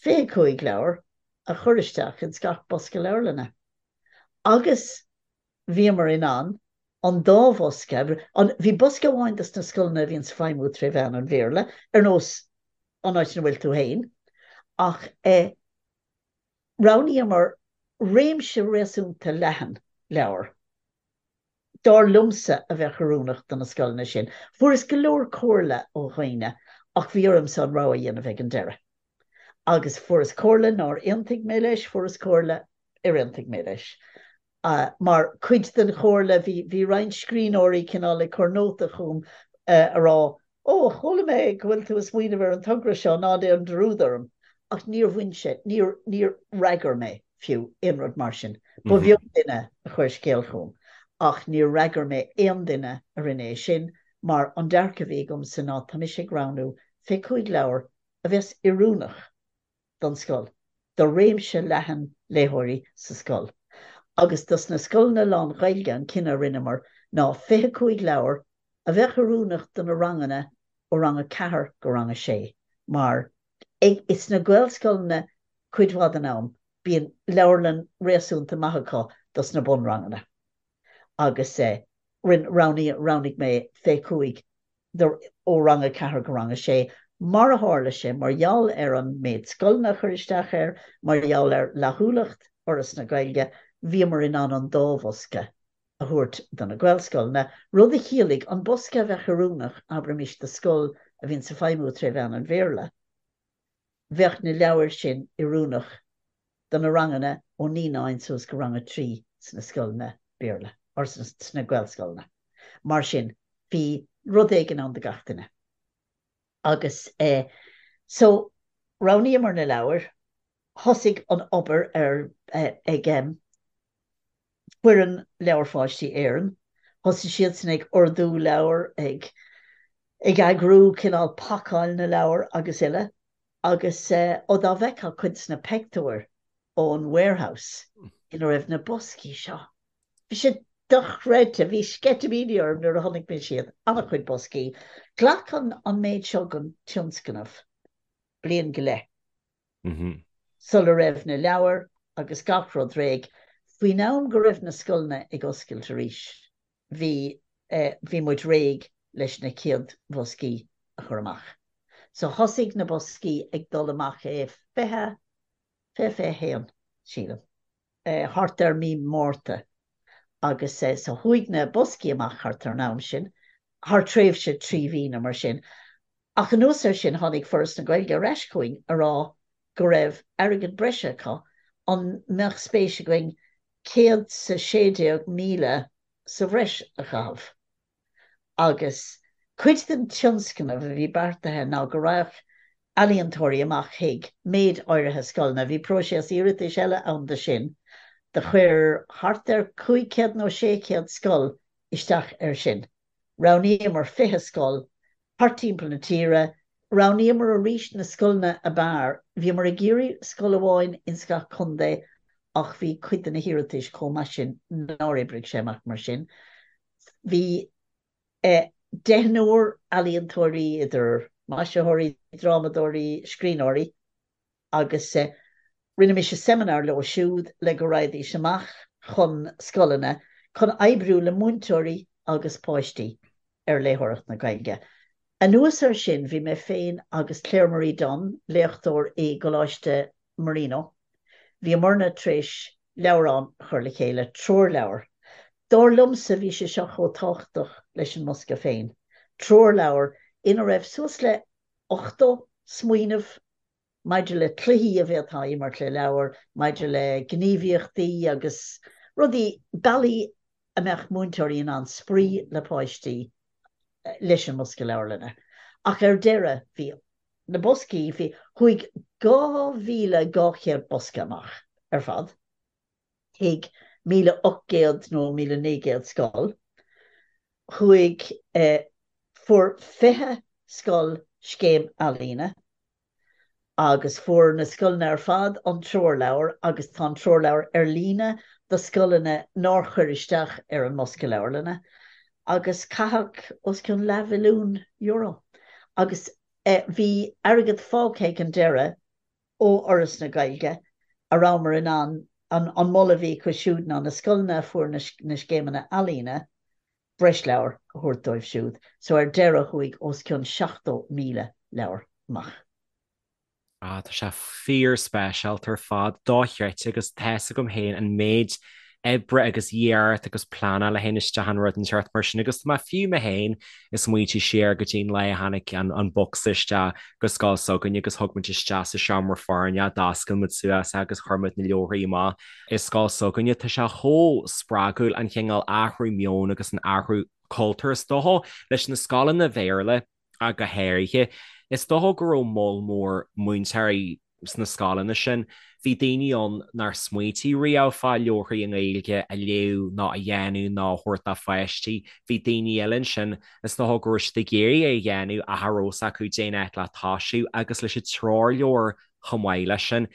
25 leabhar a chur isteach ins gach bosca leabharlainne. Agus bhíomar in ann an dá bhosca, an, bhí bosca amháin dos na scoileanna a bhíonns ag feidhmiú tré mheán an Bhéarla, ar nós an áit ina bhfuil tú fhéin, ach eh roghnaíomar réimse réasúnta leathan leabhar. dar liomsa, a bheadh oiriúnach do na scoileanna sin. Fuaireas go leor comhairle ó dhaoine ach bhí ormsa an rogha a dhéanamh ag an deireadh. Agus fuaireas comhairle nár aontaigh mé leis, fuaireas comhairle ar aontaigh mé leis. Mar chuid den chomhairle bhí, bhí roinnt scríbhneoirí cineál ag cur nóta chugam a rá Ó, chuala mé go bhfuil tú ag smaoineamh ar an togra seo, ná déan dearúd orm. Ach níor bhain sé, níor, níor fhreagair mé, fiú, aon rud mar sin. Ba bheag duine a chuir scéal chugam, ach níor fhreagair mé aon duine a rinne é sin, mar an dearcadh a bhí agamsa ná tá mise ag roghnú 25 leabhar a bheas oiriúnach don scoil, do réimse leathan léitheoirí sa scoil. Agus dos na scoileanna lán-Ghaeilge an cinneadh a rinneamar ná 25 leabhar a bheadh oiriúnach do na ranganna ó rang 4 go rang 6 mar ag sna Gaelscoileanna cuid mhaith den am bíonn leabharlann réasúnta maith acu dos na bunranganna agus rinne, roghnaigh, roghnaigh mé 25 do, ó rang 4 go rang 6. Mar a tharla sé, mar gheall ar an méid scoileanna a chuir isteach air, mar gheall ar fhlaithiúlacht Fhoras na Gaeilge, bhíomar in ann an dá bhosca a thabhairt do na Gaelscoileanna, rud a chiallaigh an bosca a bheadh oiriúnach, abraimis, do scoil a bhíonns ag feidhmiú tré mheán an Bhéarla, bheadh na leabhair sin oiriúnach do na ranganna ó naíonáin suas go rang a 3 sna scoileanna Béarla, or sna Gaelscoileanna. Mar sin, bhí rud éigin ann do gach duine. Agus eh so roghnaíomar na leabhair, thosaigh an obair ar eh ag em foireann Leabhair Pháistí Éireann, thosaigh siadsan ag ordú leabhar, ag ag eagrú cineál pacáil na leabhar agus uile agus eh ó dá bhfeicfeá cuid de na peictiúir ón warehouse ina raibh na boscaí seo. Bhí sé dochreidte, bhí sceitimíní orm nuair a chonaic mise iad, an-chuid boscaí. Ghlac an méid seo den tionscnamh bliain go leith sula raibh na leabhair agus gach rud réidh. Faoin am go raibh na scoileanna ag oscailt arís, bhí bhí muid réidh leis na chéad bhoscaí a chur amach. So thosaigh na boscaí ag dul amach i 20, 20, 21, sílim. thart ar mí Márta agus so chuaigh na boscaí amach thart ar an am sin, thar tréimhse 3 mhí nó mar sin. Ach anuas air sin tháinig Foras na Gaeilge ar ais chugainn a rá go raibh airgead breise acu, an mbeadh spéis againn 116,000 sa bhreis a chaitheamh. Agus cuid den tionscnamh a bhí beartaithe ná go raghadh ealaíontóirí amach chuig méid áirithe scoileanna. Bhí próiseas iarratais eile ann do sin. Do chuir thart ar 500 nó 600 scoil isteach air sin. Roghnaíomar 20 scoil thart timpeall na tíre. Roghnaíomar arís na scoileanna ab fhearr. Bhíomar ag iarraidh scoil amháin ins gach contae ach bhí cuid de na hiarratais chomh maith sin nár oibrigh sé amach mar sin. Bhí deichniúr ealaíontóirí, idir maisitheoirí, drámadóirí, scríbhneoirí, agus rinne mise seimineár leo siúd le go raghaidís amach chun scoileanna chun oibriú le múinteoirí agus páistí ar léitheoireacht na Gaeilge. Anuas air sin, bhí mé féin agus Claire Marie Dunne, léachtóir i gColáiste Marino, bhíomarna tar éis leabhrán a chur le chéile, treoirleabhar. Dar liomsa, bhí sé seo chomh tábhachtach leis an mbosca féin. Treoirleabhar ina raibh suas le 80 smaoineamh maidir le cluichí a bhféadfá a imirt le leabhair, maidir le gníomhaíochtaí agus rudaí, bealaí a mbeadh múinteoirí in ann spraoi le páistí leis an mbosca leabharlainne. Ach ar deireadh, bhí na boscaí, bhí, chuaigh 2,200 bosca amach ar fad chuig 1,800 nó 1,900 scoil. Chuaigh, fuair 20 scoil scéim ealaíne. Agus fuair na scoileanna ar fad an treoirleabhar agus tá an treoirleabhar ar líne do scoileanna nár chuir isteach ar an mbosca leabharlainne agus caitheadh os cionn leathmhilliún euro. Agus bhí airgead fágtha ag an deireadh ó Fhoras na Gaeilge a rabhamar in ann, an moladh a bhí acu siúd ná na scoileanna a fuair na scéimeanna ealaíne, breis leabhar a thabhairt dóibh siúd. So ar deireadh chuaigh os cionn 70,000 leabhar amach. Ah, tá sé fíor-speisialta ar fad, dochreidte agus tá's agam féin an méid oibre agus iarracht agus pleanáil a théann isteach in rud inteacht mar sin agus tá mé fiú mé féin ag smaointiú siar go dtí an lá a tháinig an bocsa isteach go scoil s'againne agus thug muid isteach sa seomra foirne é, d'oscail muid suas é agus chuir muid na leabharthaí amach i scoil s'againne. Tá sé chomh spreagúil an chineál athrú meoin agus an athrú cultúir is dócha leis na scoileanna Bhéarla ach go háirithe. Is dócha go raibh moll mór múinteoirí sna scoileanna sin. Bhí daoine ann nár smaoitigh riamh fá leabharthaí i nGaeilge a léamh ná a dhéanamh ná a thabhairt dá pháistí. Bhí daoine eile ansin is dócha go raibh siad ag iarraidh é a dhéanamh ach cha raibh fhios acu cén áit le toisiú agus leis an treoirleabhar chomh maith leis sin.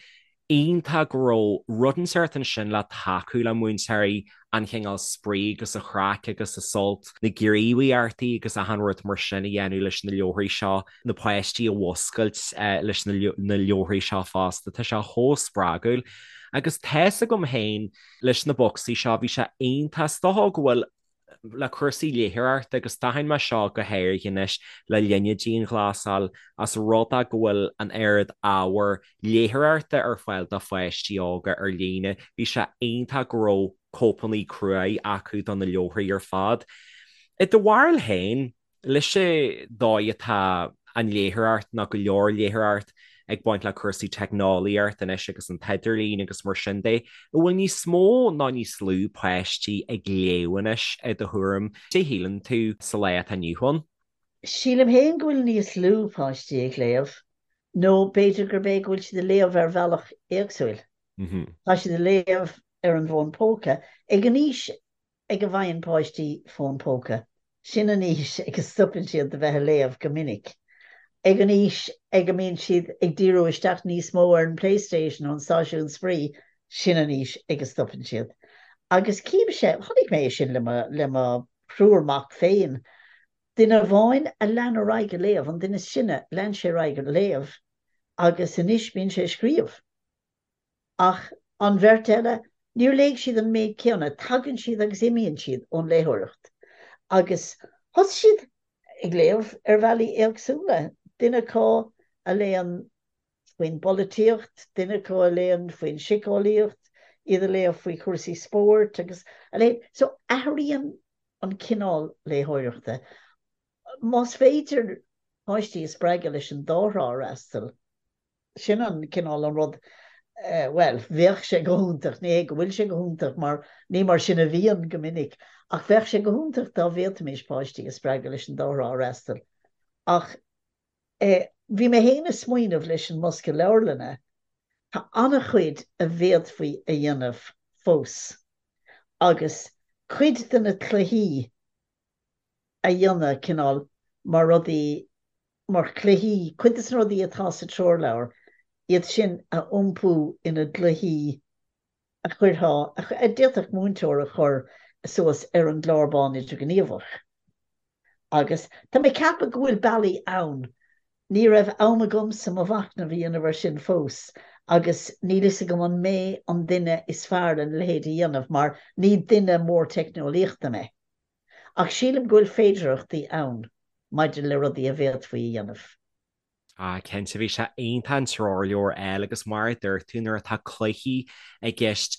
iontach go raibh rud inteacht ansin le tacú le múinteoirí, an chineál spraoi agus an chraic agus an sult, na gníomhaíochtaí agus achan rud mar sin a dhéanamh leis na leabharthaí seo, na páistí a mhuscailt leis na leabharthaí seo fosta. Tá sé chomh spreagúil. Agus tá's agam féin leis na bocsaí seo, bhí sé iontach, is dócha go bhfuil. le cúrsaí léitheoireachta agus d'aithin mé seo go háirithe anois le linn na dianghlasáil as rud é go bhfuil an oiread ábhar léitheoireachta ar fáil do pháistí óga ar líne. Bhí sé iontach go raibh cóipeanna cruaidh acu do na leabharthaí ar fad. I do bharúil féin, leis an dóigh atá an léitheoireacht nó go leor léitheoireacht ag baint le cúrsaí teicneolaíocht anois agus an t-idirlíon agus mar sin de, an bhfuil níos mó nó níos lú páistí ag léamh anois i do thuairim? Cad é shíleann tú sa lá atá inniu ann? Sílim féin go bhfuil níos lú páistí ag léamh, nó b'fhéidir gurb é go bhfuil siad ag léamh ar bhealach éagsúil. Tá siad ag léamh ar an bhfón póca ag an aois ag a bhfaigheann páistí fón póca, sin an aois ag a stopann siad de bheith ag léamh go minic. Ag an aois ag a mbíonn siad ag díriú isteach níos mó ar an PlayStation nó an stáisiún spraoi, sin an aois ag a stopann siad. Agus címse, chonaic mé é sin le mo, le mo thriúr mac féin. Duine amháin a lean ar aghaidh ag léamh, an duine is sine, lean sé ar aghaidh ag léamh agus anois bíonn sé ag scríobh. Ach an bheirt eile, níor léigh siad an méid céanna, tagann siad agus imíonn siad ón léitheoireacht. Agus thosaigh siad ag léamh ar bhealaí éagsúla, duine acu a léann faoin bpolaitíocht, duine acu a léann faoin síceolaíocht, iad a léamh faoi chúrsaí spóirt agus a leithéid. So athraíonn an cineál léitheoireachta. Más féidir páistí a spreagadh leis an dá thrá a fhreastal, Sin an cineál an rud, bhuel, bheadh sé go hiontach, ní hé go bhfuil sé go hiontach mar ní mar sin a bhíonn go minic, ach bheadh sé go hiontach dá bhféadfaimis páistí a spreagadh leis an dá thrá a fhreastal. Ach eh, bhí mé féin ag smaoineamh leis an mbosca leabharlainne, tá an-chuid a bhféadfaí a dhéanamh fós agus cuid de na cluichí a dhéanamh cineál mar rudaí, mar chluichí, cuid de na rudaí atá sa treoirleabhar, iad sin a iompú ina gcluichí a chuirfeá, a d'fhéadfadh múinteoir a chur suas ar an gclár bán idirghníomhach. Agus tá mé ag ceapadh go bhfuil bealaí ann. Ní raibh am agamsa mo mhachnamh a dhéanamh air sin fós agus níl fhios agam an mé an duine is fearr lena leithéid a dhéanamh mar ní duine mór teicneolaíochta mé. Ach sílim go bhfuil féidearthachtaí ann maidir le rudaí a bhféadfaí a dhéanamh. Ah, cinnte, bhí sé iontach an treoirleabhar a fháil agus mar a dúirt tú, nuair atá cluichí i gceist,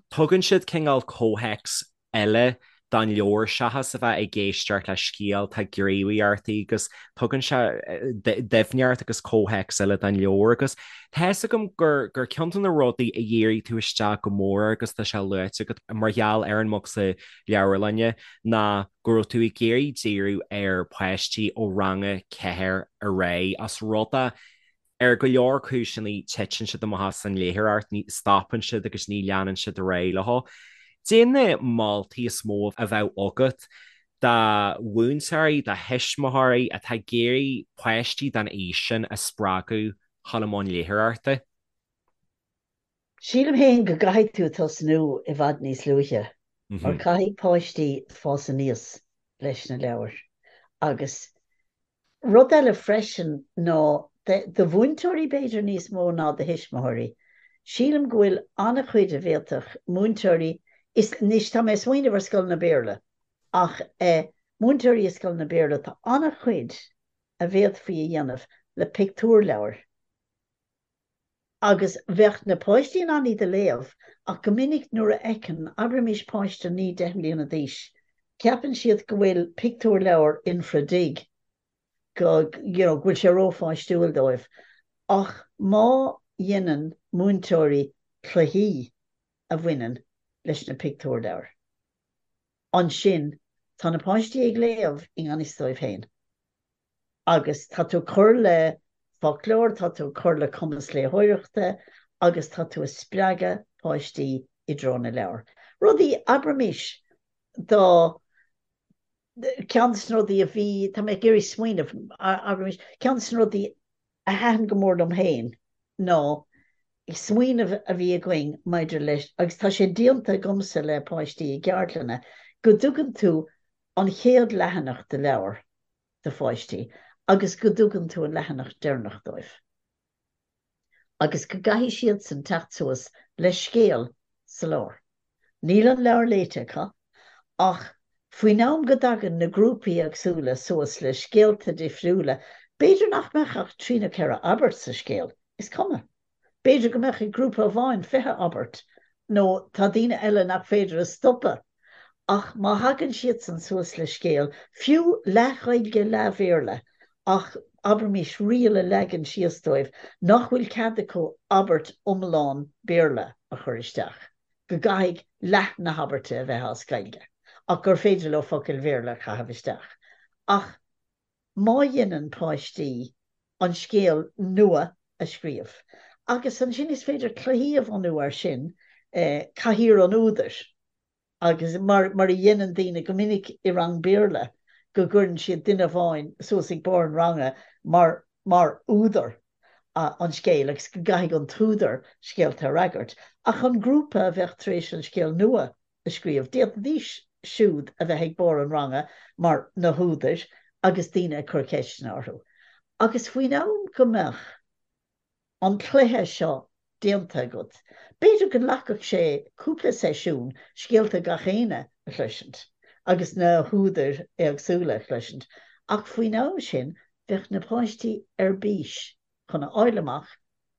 tugann siad cineál comhthéacs eile don leabhar seachas a bheith ag éisteacht le scéal, tá gníomhaíochtaí agus tugann sé doimhneacht agus comhthéacs eile don leabhar agus tá fhios agam gur gur ceann de na rudaí a dhírigh tú isteach go mór agus tá sé luaite agat mar gheall ar an mbocsa leabharlainne ná go raibh tú ag iarraidh díriú ar pháistí ó rang a 4 ar aghaidh as rud é ar go leor cúiseanna titeann siad amach as an léitheoireacht, ní stopann siad agus ní leanann siad ar aghaidh leo. Cad é na moltaí is mó a bheadh agat do mhúinteoirí, do thuismitheoirí atá ag iarraidh páistí den aois sin a spreagadh chun i mbun léitheoireachta? Sílim féin go gcaithfidh tú tosnú i bhfad níos luaithe, mar caithfidh páistí fás aníos leis na leabhair. Agus rud eile freisin ná do mhúinteoirí b'fhéidir níos mó ná do thuismitheoirí, sílim go bhfuil an-chuid a bhféadfadh múinteoirí, is anois tá mé ag smaoineamh ar scoileanna Béarla, ach múinteoirí i scoileanna Béarla, tá an-chuid a bhféadfaí a dhéanamh le pictiúrleabhair. Agus bheadh na páistí in ann iad a léamh, ach go minic nuair a fheiceann, abraimis páiste 9, 10 mbliana d'aois, ceapann siad go bhfuil pictiúrleabhar infra-dig, go, you know, go bhfuil sé rópháistiúil dóibh. Ach má dhéanann múinteoirí cluichí a bhaineann leis na pictiúrleabhair, ansin tá na páistí ag léamh i ngan fhios dóibh féin. Agus tá tú ag cur le foclóir, tá tú ag cur le cumas léitheoireachta agus tá tú ag spreagadh páistí i dtreo na leabhar. Rudaí, abraimis, dá, ceann de na rudaí a bhí, tá mé ag iarraidh smaoineamh, abraimis, ceann de na rudaí a thaitin go mór liom féin ná smaoineamh a bhí againn maidir leis, agus tá sé déanta agamsa le páistí i gceardlanna, go dtugann tú an chéad leathanach de leabhar do pháistí agus go dtugann tú an leathanach deireanach dóibh agus go gcaithfidh siadsan teacht suas le scéal sa lár. Níl an leabhar léite acu ach. Faoin am go dtagann na grúpaí éagsúla suas le scéalta difriúla, b'fhéidir nach mbeadh ach trí nó ceithre abairt sa scéal, is cuma. B'fhéidir go mbeadh ag grúpa amháin 20 abairt, nó tá daoine eile nach féidir a stopadh. Ach má thagann siadsan suas le scéal, fiú leath-Ghaeilge leath-Bhéarla, ach abraimis riail a leagan síos dóibh nach bhfuil cead acu abairt iomlán Béarla a chur isteach. go gcaithfidh leath na habairte a bheith as Gaeilge, ach gur féidir leo focail Bhéarla a chaitheamh isteach. Ach má dhéanann páistí an scéal nua a scríobh, agus ansin is féidir cluichí a bhunú air sin, cathaoir an údair, agus mar mar a dhéanann daoine go minic i rang Béarla, go gcuireann siad duine amháin suas ag barr an ranga mar mar údar an scéil agus go gcaithfidh an t-údar scéalta a fhreagairt. Ach an grúpa a bheadh tar éis an scéal nua a scríobh, d'fhéadfaidís siúd a bheith ag barr an ranga mar na húdair agus daoine ag cur ceisteanna orthu. Agus faoin am go mbeadh an cluiche seo déanta agat, b'fhéidir go nglacfadh sé cúpla seisiún scéalta gach éinne a chloisint agus na húdair éagsúla a chloisint, ach faoin am sin bheadh na páistí ar bís chun a fháil amach,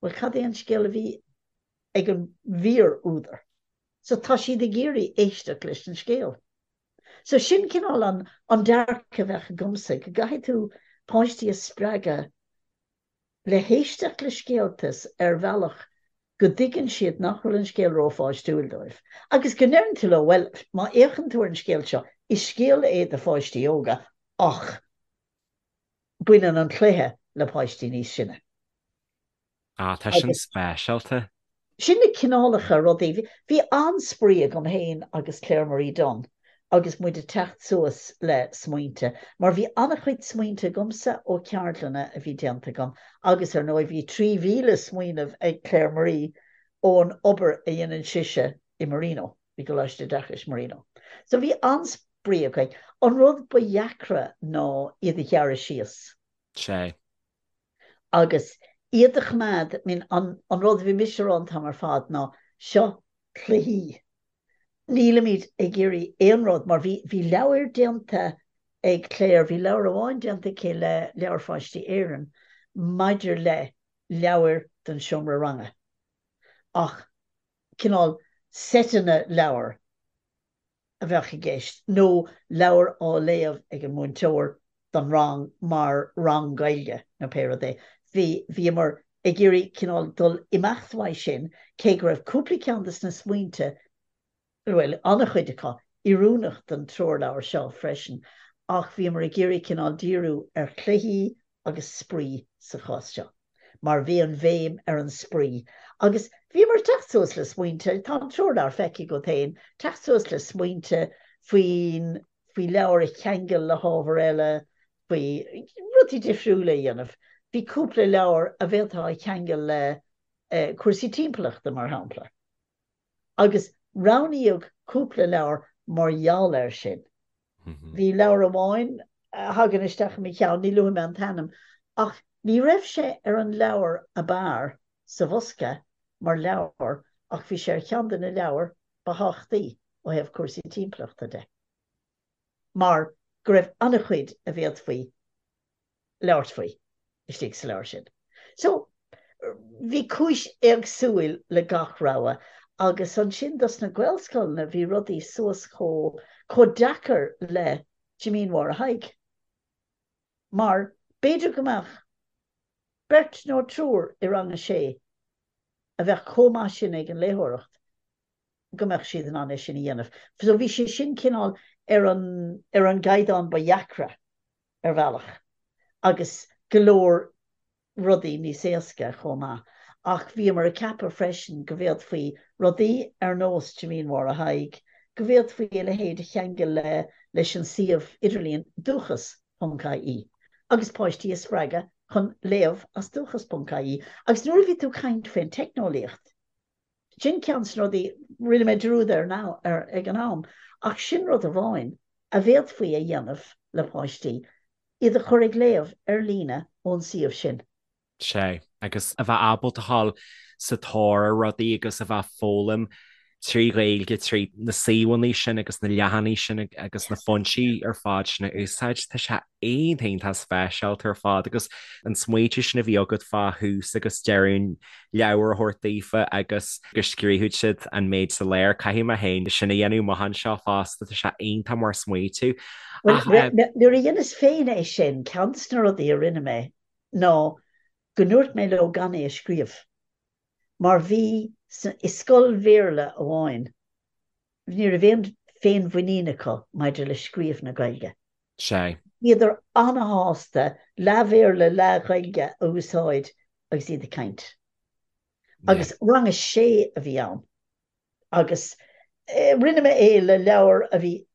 bhuel, cad é an scéal a bhí ag an bhfíor-údar? So tá siad ag iarraidh éisteacht leis an scéal. So sin cineál an an dearcadh a bheadh agamsa, go gcaithfidh tú páistí a spreagadh le héisteacht le scéalta ar bhealach go dtuigeann siad nach bhfuil an scéal rópháistiúil dóibh. Agus go ndeireann tú leo, bhuel, má fhéachann tú ar an scéal seo, is scéal é do pháistí óga ach baineann an cluiche le páistí níos sine. Ah, tá sin speisialta. Sin na cineálacha rudaí. Bhí an-spraoi agam féin agus Claire Marie Dunne agus muid ag teacht suas le smaointe, mar bhí an-chuid smaointe agamsa ó cheardlanna a bhí déanta agam agus ar ndóigh bhí 3,000 smaoineamh ag Claire Marie ón obair a dhéanann sise i Marino, i gColáiste Oideachais Marino. So bhí an-spraoi againn. An rud ba dheacra ná iad a ghearradh síos. Sea. Agus iad a choimeád, I mean, an rud a bhí mise a rá an t-am ar fad ná seo cluichí. Nílimid ag iarraidh aon rud, mar bhí, bhí leabhair déanta ag Claire, bhí leabhar amháin déanta aici le Leabhair Pháistí Éireann maidir le leabhair don seomra ranga, ach cineál seiteanna leabhar. a bheadh i gceist, nó leabhar á léamh ag an múinteoir don rang mar rang Gaeilge nó pé rud é. Bhí, bhíomar ag iarraidh cineál dul imeacht uaidh sin, cé go raibh cúpla ceann de na smaointe, bhuel, an-chuid acu, oiriúnach don treoirleabhar seo freisin, ach bhíomar ag iarraidh cineál díriú ar chluichí agus spraoi sa chás seo, mar bhí an bhéim ar an spraoi. Agus bhíomar ag teacht suas le smaointe, tá an treoirleabhar feicthe agat féin, teacht suas le smaointe faoin, faoi leabhar a cheangal le hábhar eile, faoi rudaí difriúla a dhéanamh. Bhí cúpla leabhar a bhféadfá a cheangal le cúrsaí timpeallachta, mar shampla. Agus roghnaíodh cúpla leabhar mar gheall air sin. Bhí leabhar amháin a thagann isteach i mo cheann, ní luafaidh mé an t-ainm, ach ní raibh sé ar an leabhar ab fhearr sa bhosca mar leabhar ach bhí sé ar cheann de na leabhair ba thábhachtaí ó thaobh cúrsaí timpeallachta de mar go raibh an-chuid a bhféadfaí labhairt faoi istigh sa leabhar sin. So, bhí cúis éagsúil le gach rogha agus ansin dos na Gaelscoileanna bhí rudaí suas chomh, chomh deacair le Jimín Mháire Thaidhg. Mar b'fhéidir go mbeadh beirt nó triúr i rang a sé a bheadh chomh maith sin ag an léitheoireacht go mbeadh siad in ann é sin a dhéanamh. So bhí sé sin cineál ar an, ar an gcaighdeán ba dheacra. ar bhealach, agus go leor rudaí níos éasca chomh maith. Ach bhíomar ag ceapadh freisin go bhféadfaí rudaí ar nós Jimín Mháire Thaidhg, go bhféadfaí a leithéid a cheangal le leis an suíomh idirlíon dúchas ponc ie agus páistí a spreagadh chun léamh as dúchas ponc ie. Agus nuair a bhí tú ag caint faoin teicneolaíocht, Sin ceann de na rudaí, rinne mé dearúd air now, air ag an am, ach sin rud amháin a bhféadfaí a dhéanamh le páistí, iad a chur ag léamh ar líne ón suíomh sin. Sea, agus a bheith ábalta a ghabháil sa tóir ar rudaí agus a bheith ag foghlaim. trí Ghaeilge, trí na suíomhanna sin agus na leathanaigh sin agus na foinsí ar fad sin a úsáid. Tá sé iontach iontach speisialta ar fad agus an smaoitiú sin a bhí agat fá thús agus deireadh an leabhair a thabhairt daofa agus go scríobhadh siad an méid sa lár. Caithfidh mé féin sin a dhéanamh amach anseo fosta, tá sé iontach mar smaoitiú. Ach nuair a dheineas féin é sin, ceann de na rudaí a rinne mé ná go ndúirt mé leo gan é a scríobh. Mar bhí i scoil Bhéarla amháin, ní raibh aon féinmhuinín acu maidir le scríobh na Gaeilge. Sea. Bhíodar an-shásta leath-Bhéarla, leath-Ghaeilge a úsáid agus iad ag caint. Agus rang a sé a bhí ann. Agus rinne mé é le leabhar a bhí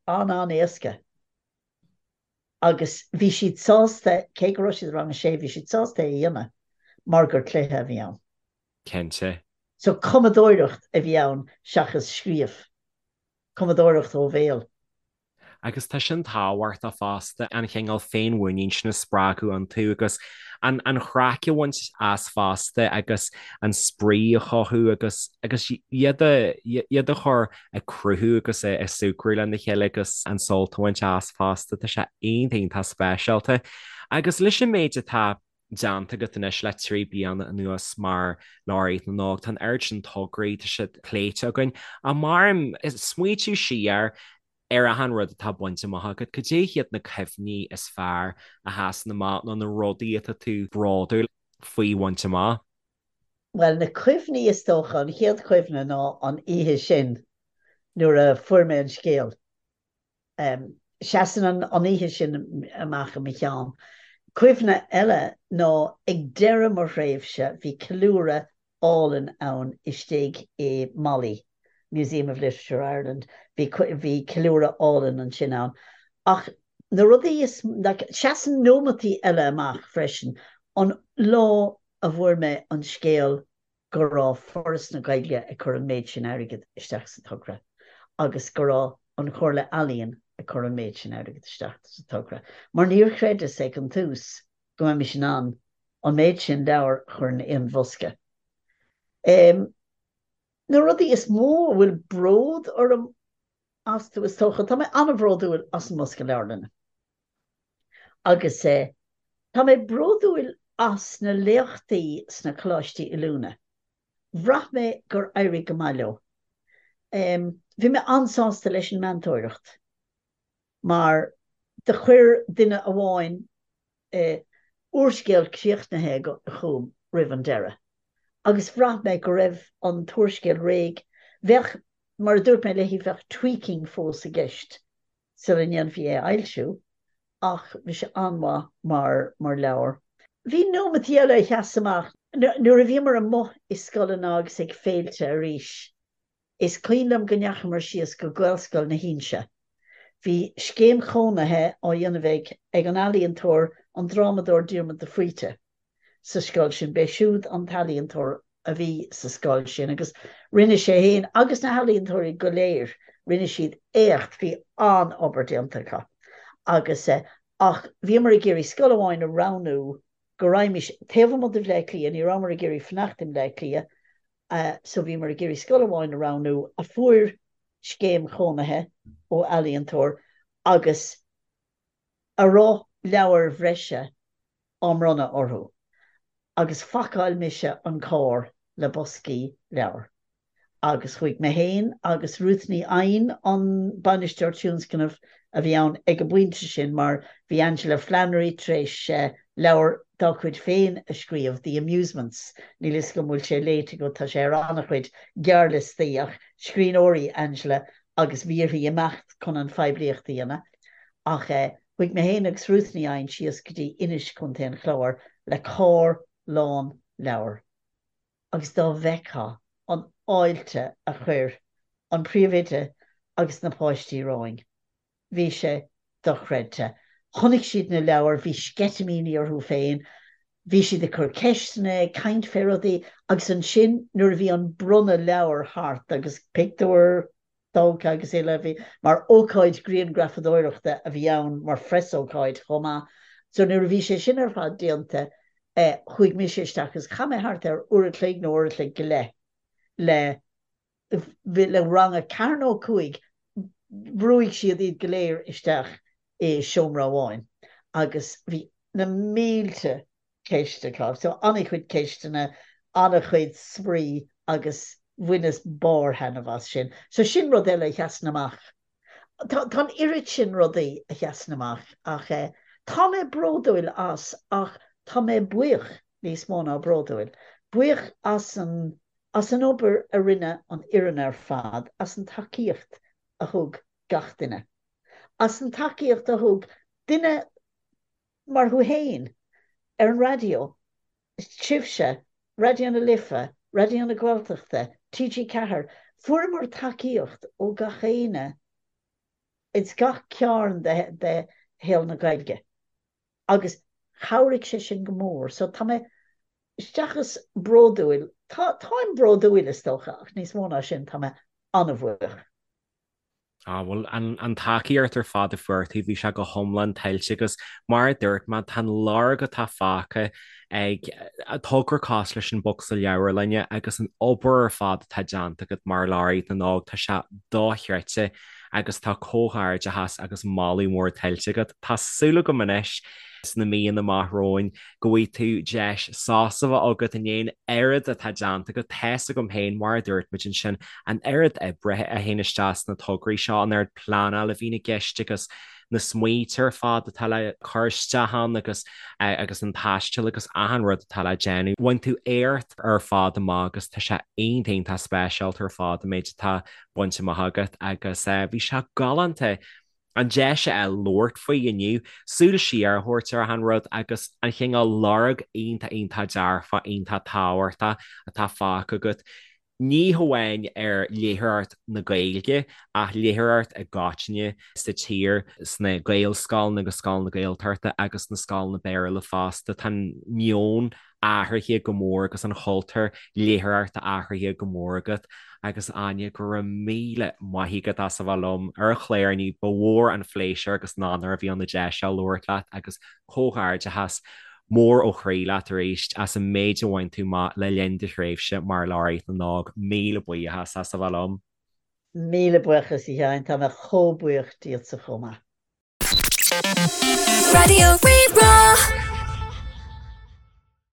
an-an-éasca. Agus bhí siad sásta, cé go raibh siad i rang a sé, bhí siad sásta é a dhéanamh mar gur cluiche a bhí ann. Cinnte. So cumadóireacht a bhí ann seachas scríobh. Cumadóireacht ó bhéal. Agus tá sin tábhachtach fosta, an chineál féinmhuinín sin a spreagadh iontu agus an an chraic a bhaint as fosta agus an spraoi a chothú agus agus iad a iad a chur ag cruthú agus ag súgradh lena chéile agus an sult a bhaint as fosta. Tá sé iontach iontach speisialta. Agus leis an méid atá déanta agat anois le 3 bliana anuas mar Laureate na nÓg, tá an oiread sin tograí, tá siad pléite againn. Ach mar smaoitiú siar ar achan rud atá bainte amach agat, cad é hiad na cuimhní is fearr a sheasann amach nó na rudaí atá tú bródúil faoi bhaint amach? Bhuel, na cuimhní is dócha, an chéad chuimhne ná an oíche sin nuair a fuair mé an scéal. Seasann an oíche sin amach i mo cheann. Cuimhne eile ná ag deireadh mo thréimhse bhí ceiliúradh álainn ann istigh i MoLI, Museum of Literature Ireland, bhí bhí ceiliúradh álainn ansin ann. Ach na rudaí is, like, seasann nóimeataí eile amach freisin, an lá a bhfuair mé an scéal go raibh Foras na Gaeilge ag cur an méid sin airgid isteach sa togra agus go raibh an Chomhairle Ealaíon ag cur an méid sin airgid isteach sa togra, mar níor chreideas ag an tús go mbeimis in ann an méid sin leabhar a chur in aon bhosca. Na rudaí is mó a bhfuil bród orm astu, is dócha, tá mé an-bhródúil as an mbosca leabharlainne. Agus tá mé bródúil as na léachtaí sna coláistí oiliúna. Bhraith mé gur éirigh go maith leo. Bhí mé an-sásta leis an meantóireacht mar do chuir duine amháin úrscéal críochnaithe chugam roimh an deireadh agus bhraith mé go raibh an t-úrscéal réidh. Bheadh, mar a dúirt mé léi, bheadh tweaking fós i gceist sula ndéanfaí é a fhoilsiú, ach bhí sé an-mhaith mar mar leabhar. Bhí nóimeataí eile a sheas amach. Nuair a bhíomar amuigh i scoileanna agus ag féilte arís, is cuimhin liom go ndeachamar síos go Gaelscoil na hInse. Bhí scéim chónaithe á dhéanamh ag ag an ealaíontóir, an drámadóir Diarmuid de Faoite. sa scoil sin. B'é siúd an t-ealaíontóir a bhí sa scoil sin agus rinne sé fhéin agus na healaíontóirí go léir, rinne siad éacht, bhí an-obair déanta acu. Agus eh, ach bhíomar ag iarraidh scoil amháin a roghnú go raghaimís taobh amuigh de Bhleá Cliath, ní rabhamar ag iarraidh fanacht i mBleá Cliath, eh, so bhíomar ag iarraidh scoil amháin a roghnú a fuair scéim chónaithe ó ealaíontóir agus a raibh leabhair bhreise á mbronnadh orthu agus phacáil mise an carr le boscaí leabhar agus chuaigh mé féin agus Ruth Ní Eidhin, an bainisteoir tionscnaimh a bhí ann ag an bpointe sin mar bhí Aingeala Flannery tar éis leabhar dá cuid féin a scríobh, The Amusements, níl 'fhios agam an bhfuil sé léite agat, tá sé ar an-chuid gearrliostaí ach scríbhneoir í Angela agus bhí uirthi imeacht chun an phoiblíocht a dhéanamh. Ach chuaigh mé féin agus Ruth Ní Eidhin síos go dtí Inis, Co. an Chláir, le carr lán leabhar agus dá bhfeictheá an fháilte a chuir an príomhoide agus na páistí romhainn, bhí sé dochreidte. Chonaic siad na leabhair, bhí sceitimíní orthu féin, bhí siad ag cur ceisteanna, ag caint fé rudaí agus ansin nuair a bhí an bronnadh leabhar thart agus pictiúir tógtha agus uile, bhí, mar ócáid grianghrafadóireachta a bhí ann, mar phreasócáid chomh maith. So nuair a bhí sé sin ar fad déanta, eh, chuaigh mise isteach agus chaith mé thart ar uair a chloig nó uair a chloig go leith le. Le rang a ceathair nó a 5, bhrúigh siad iad go léir isteach i seomra amháin agus bhí na mílte ceist acu. So an-chuid ceisteanna, an-chuid spraoi agus bhaineas barr thaitneamh as sin. So sin rud eile a sheasann amach. Tá an oiread sin rudaí a sheasann amach ach tá mé bródúil as ach tá mé buíoch níos mó ná bródúil. Buíoch as an as an obair a rinne an fhoireann ar fad, as an tacaíocht a thug gach duine, as an tacaíocht a thug duine mar thú fhéin ar an raidió, sibhse, Raidió na Life, Raidió na Gaeltachta, TG4, fuaireamar tacaíocht ó gach éinne ins gach cearn de shaol na Gaeilge agus chabhraigh sé sin go mór. So tá mé seachas bródúil, tá, táim bródúil is dócha ach níos mó ná sin tá mé an-bhuíoch. Ah, bhuel, an, an tacaíocht ar fad a fuair tú, bhí sé go hiomlán tuillte agus mar a dúirt mé, tá an lorg atá fágtha ag togra cosúil leis an Bocsa Leabharlainne agus an obair ar fad atá déanta agat mar Laureate na nÓg, tá sé dochreidte agus tá comhghairdeachas agus moladh mór tuillte agat. Tá súil agam anois sna míonna amach romhainn go bhfaighidh tú deis sásamh a bheith agat i ndiaidh an oiread atá déanta agat. Tá's agam féin, mar a dúirt muid ansin, an oiread oibre a théann isteach sna tograí seo, an oiread pleanála a bhíonn i gceist agus na smaointe ar fad atá le cur isteach ann agus agus an taisteal agus achan rud atá le déanamh. Bhain tú éacht ar fad amach agus tá sé iontach iontach speisialta ar fad an méid atá bainte amach agat agus bhí sé galánta an deis a fháil labhairt faoi inniu, súil siar a thabhairt ar achan rud agus an chineál lorg iontach iontach dearfach iontach tábhachtach atá fágtha agat, ní hamháin ar léitheoireacht na Gaeilge ach léitheoireacht i gcoitinne sa tír, sna Gaelscoileanna agus scoileanna Gaeltachta agus sna scoileanna Béarla fosta. Tá an meon athraithe go mór agus an chultúr léitheoireachta athraithe go mór agat agus Áine, go raibh míle maith agat as a bheith liom ar an chlár inniu, ba mhór an phléisiúr agus an onóir a bhí ann an deis seo labhairt leat agus comhghairdeachas mór ó chroí leat arís as an méid a bhain tú amach le linn do thréimhse mar Laureate na nÓg. Míle buíochas as a bheith liom. Míle buíochas a Sheáin, tá mé chomh buíoch díotsa chomh maith. Raidió Rí-Rá.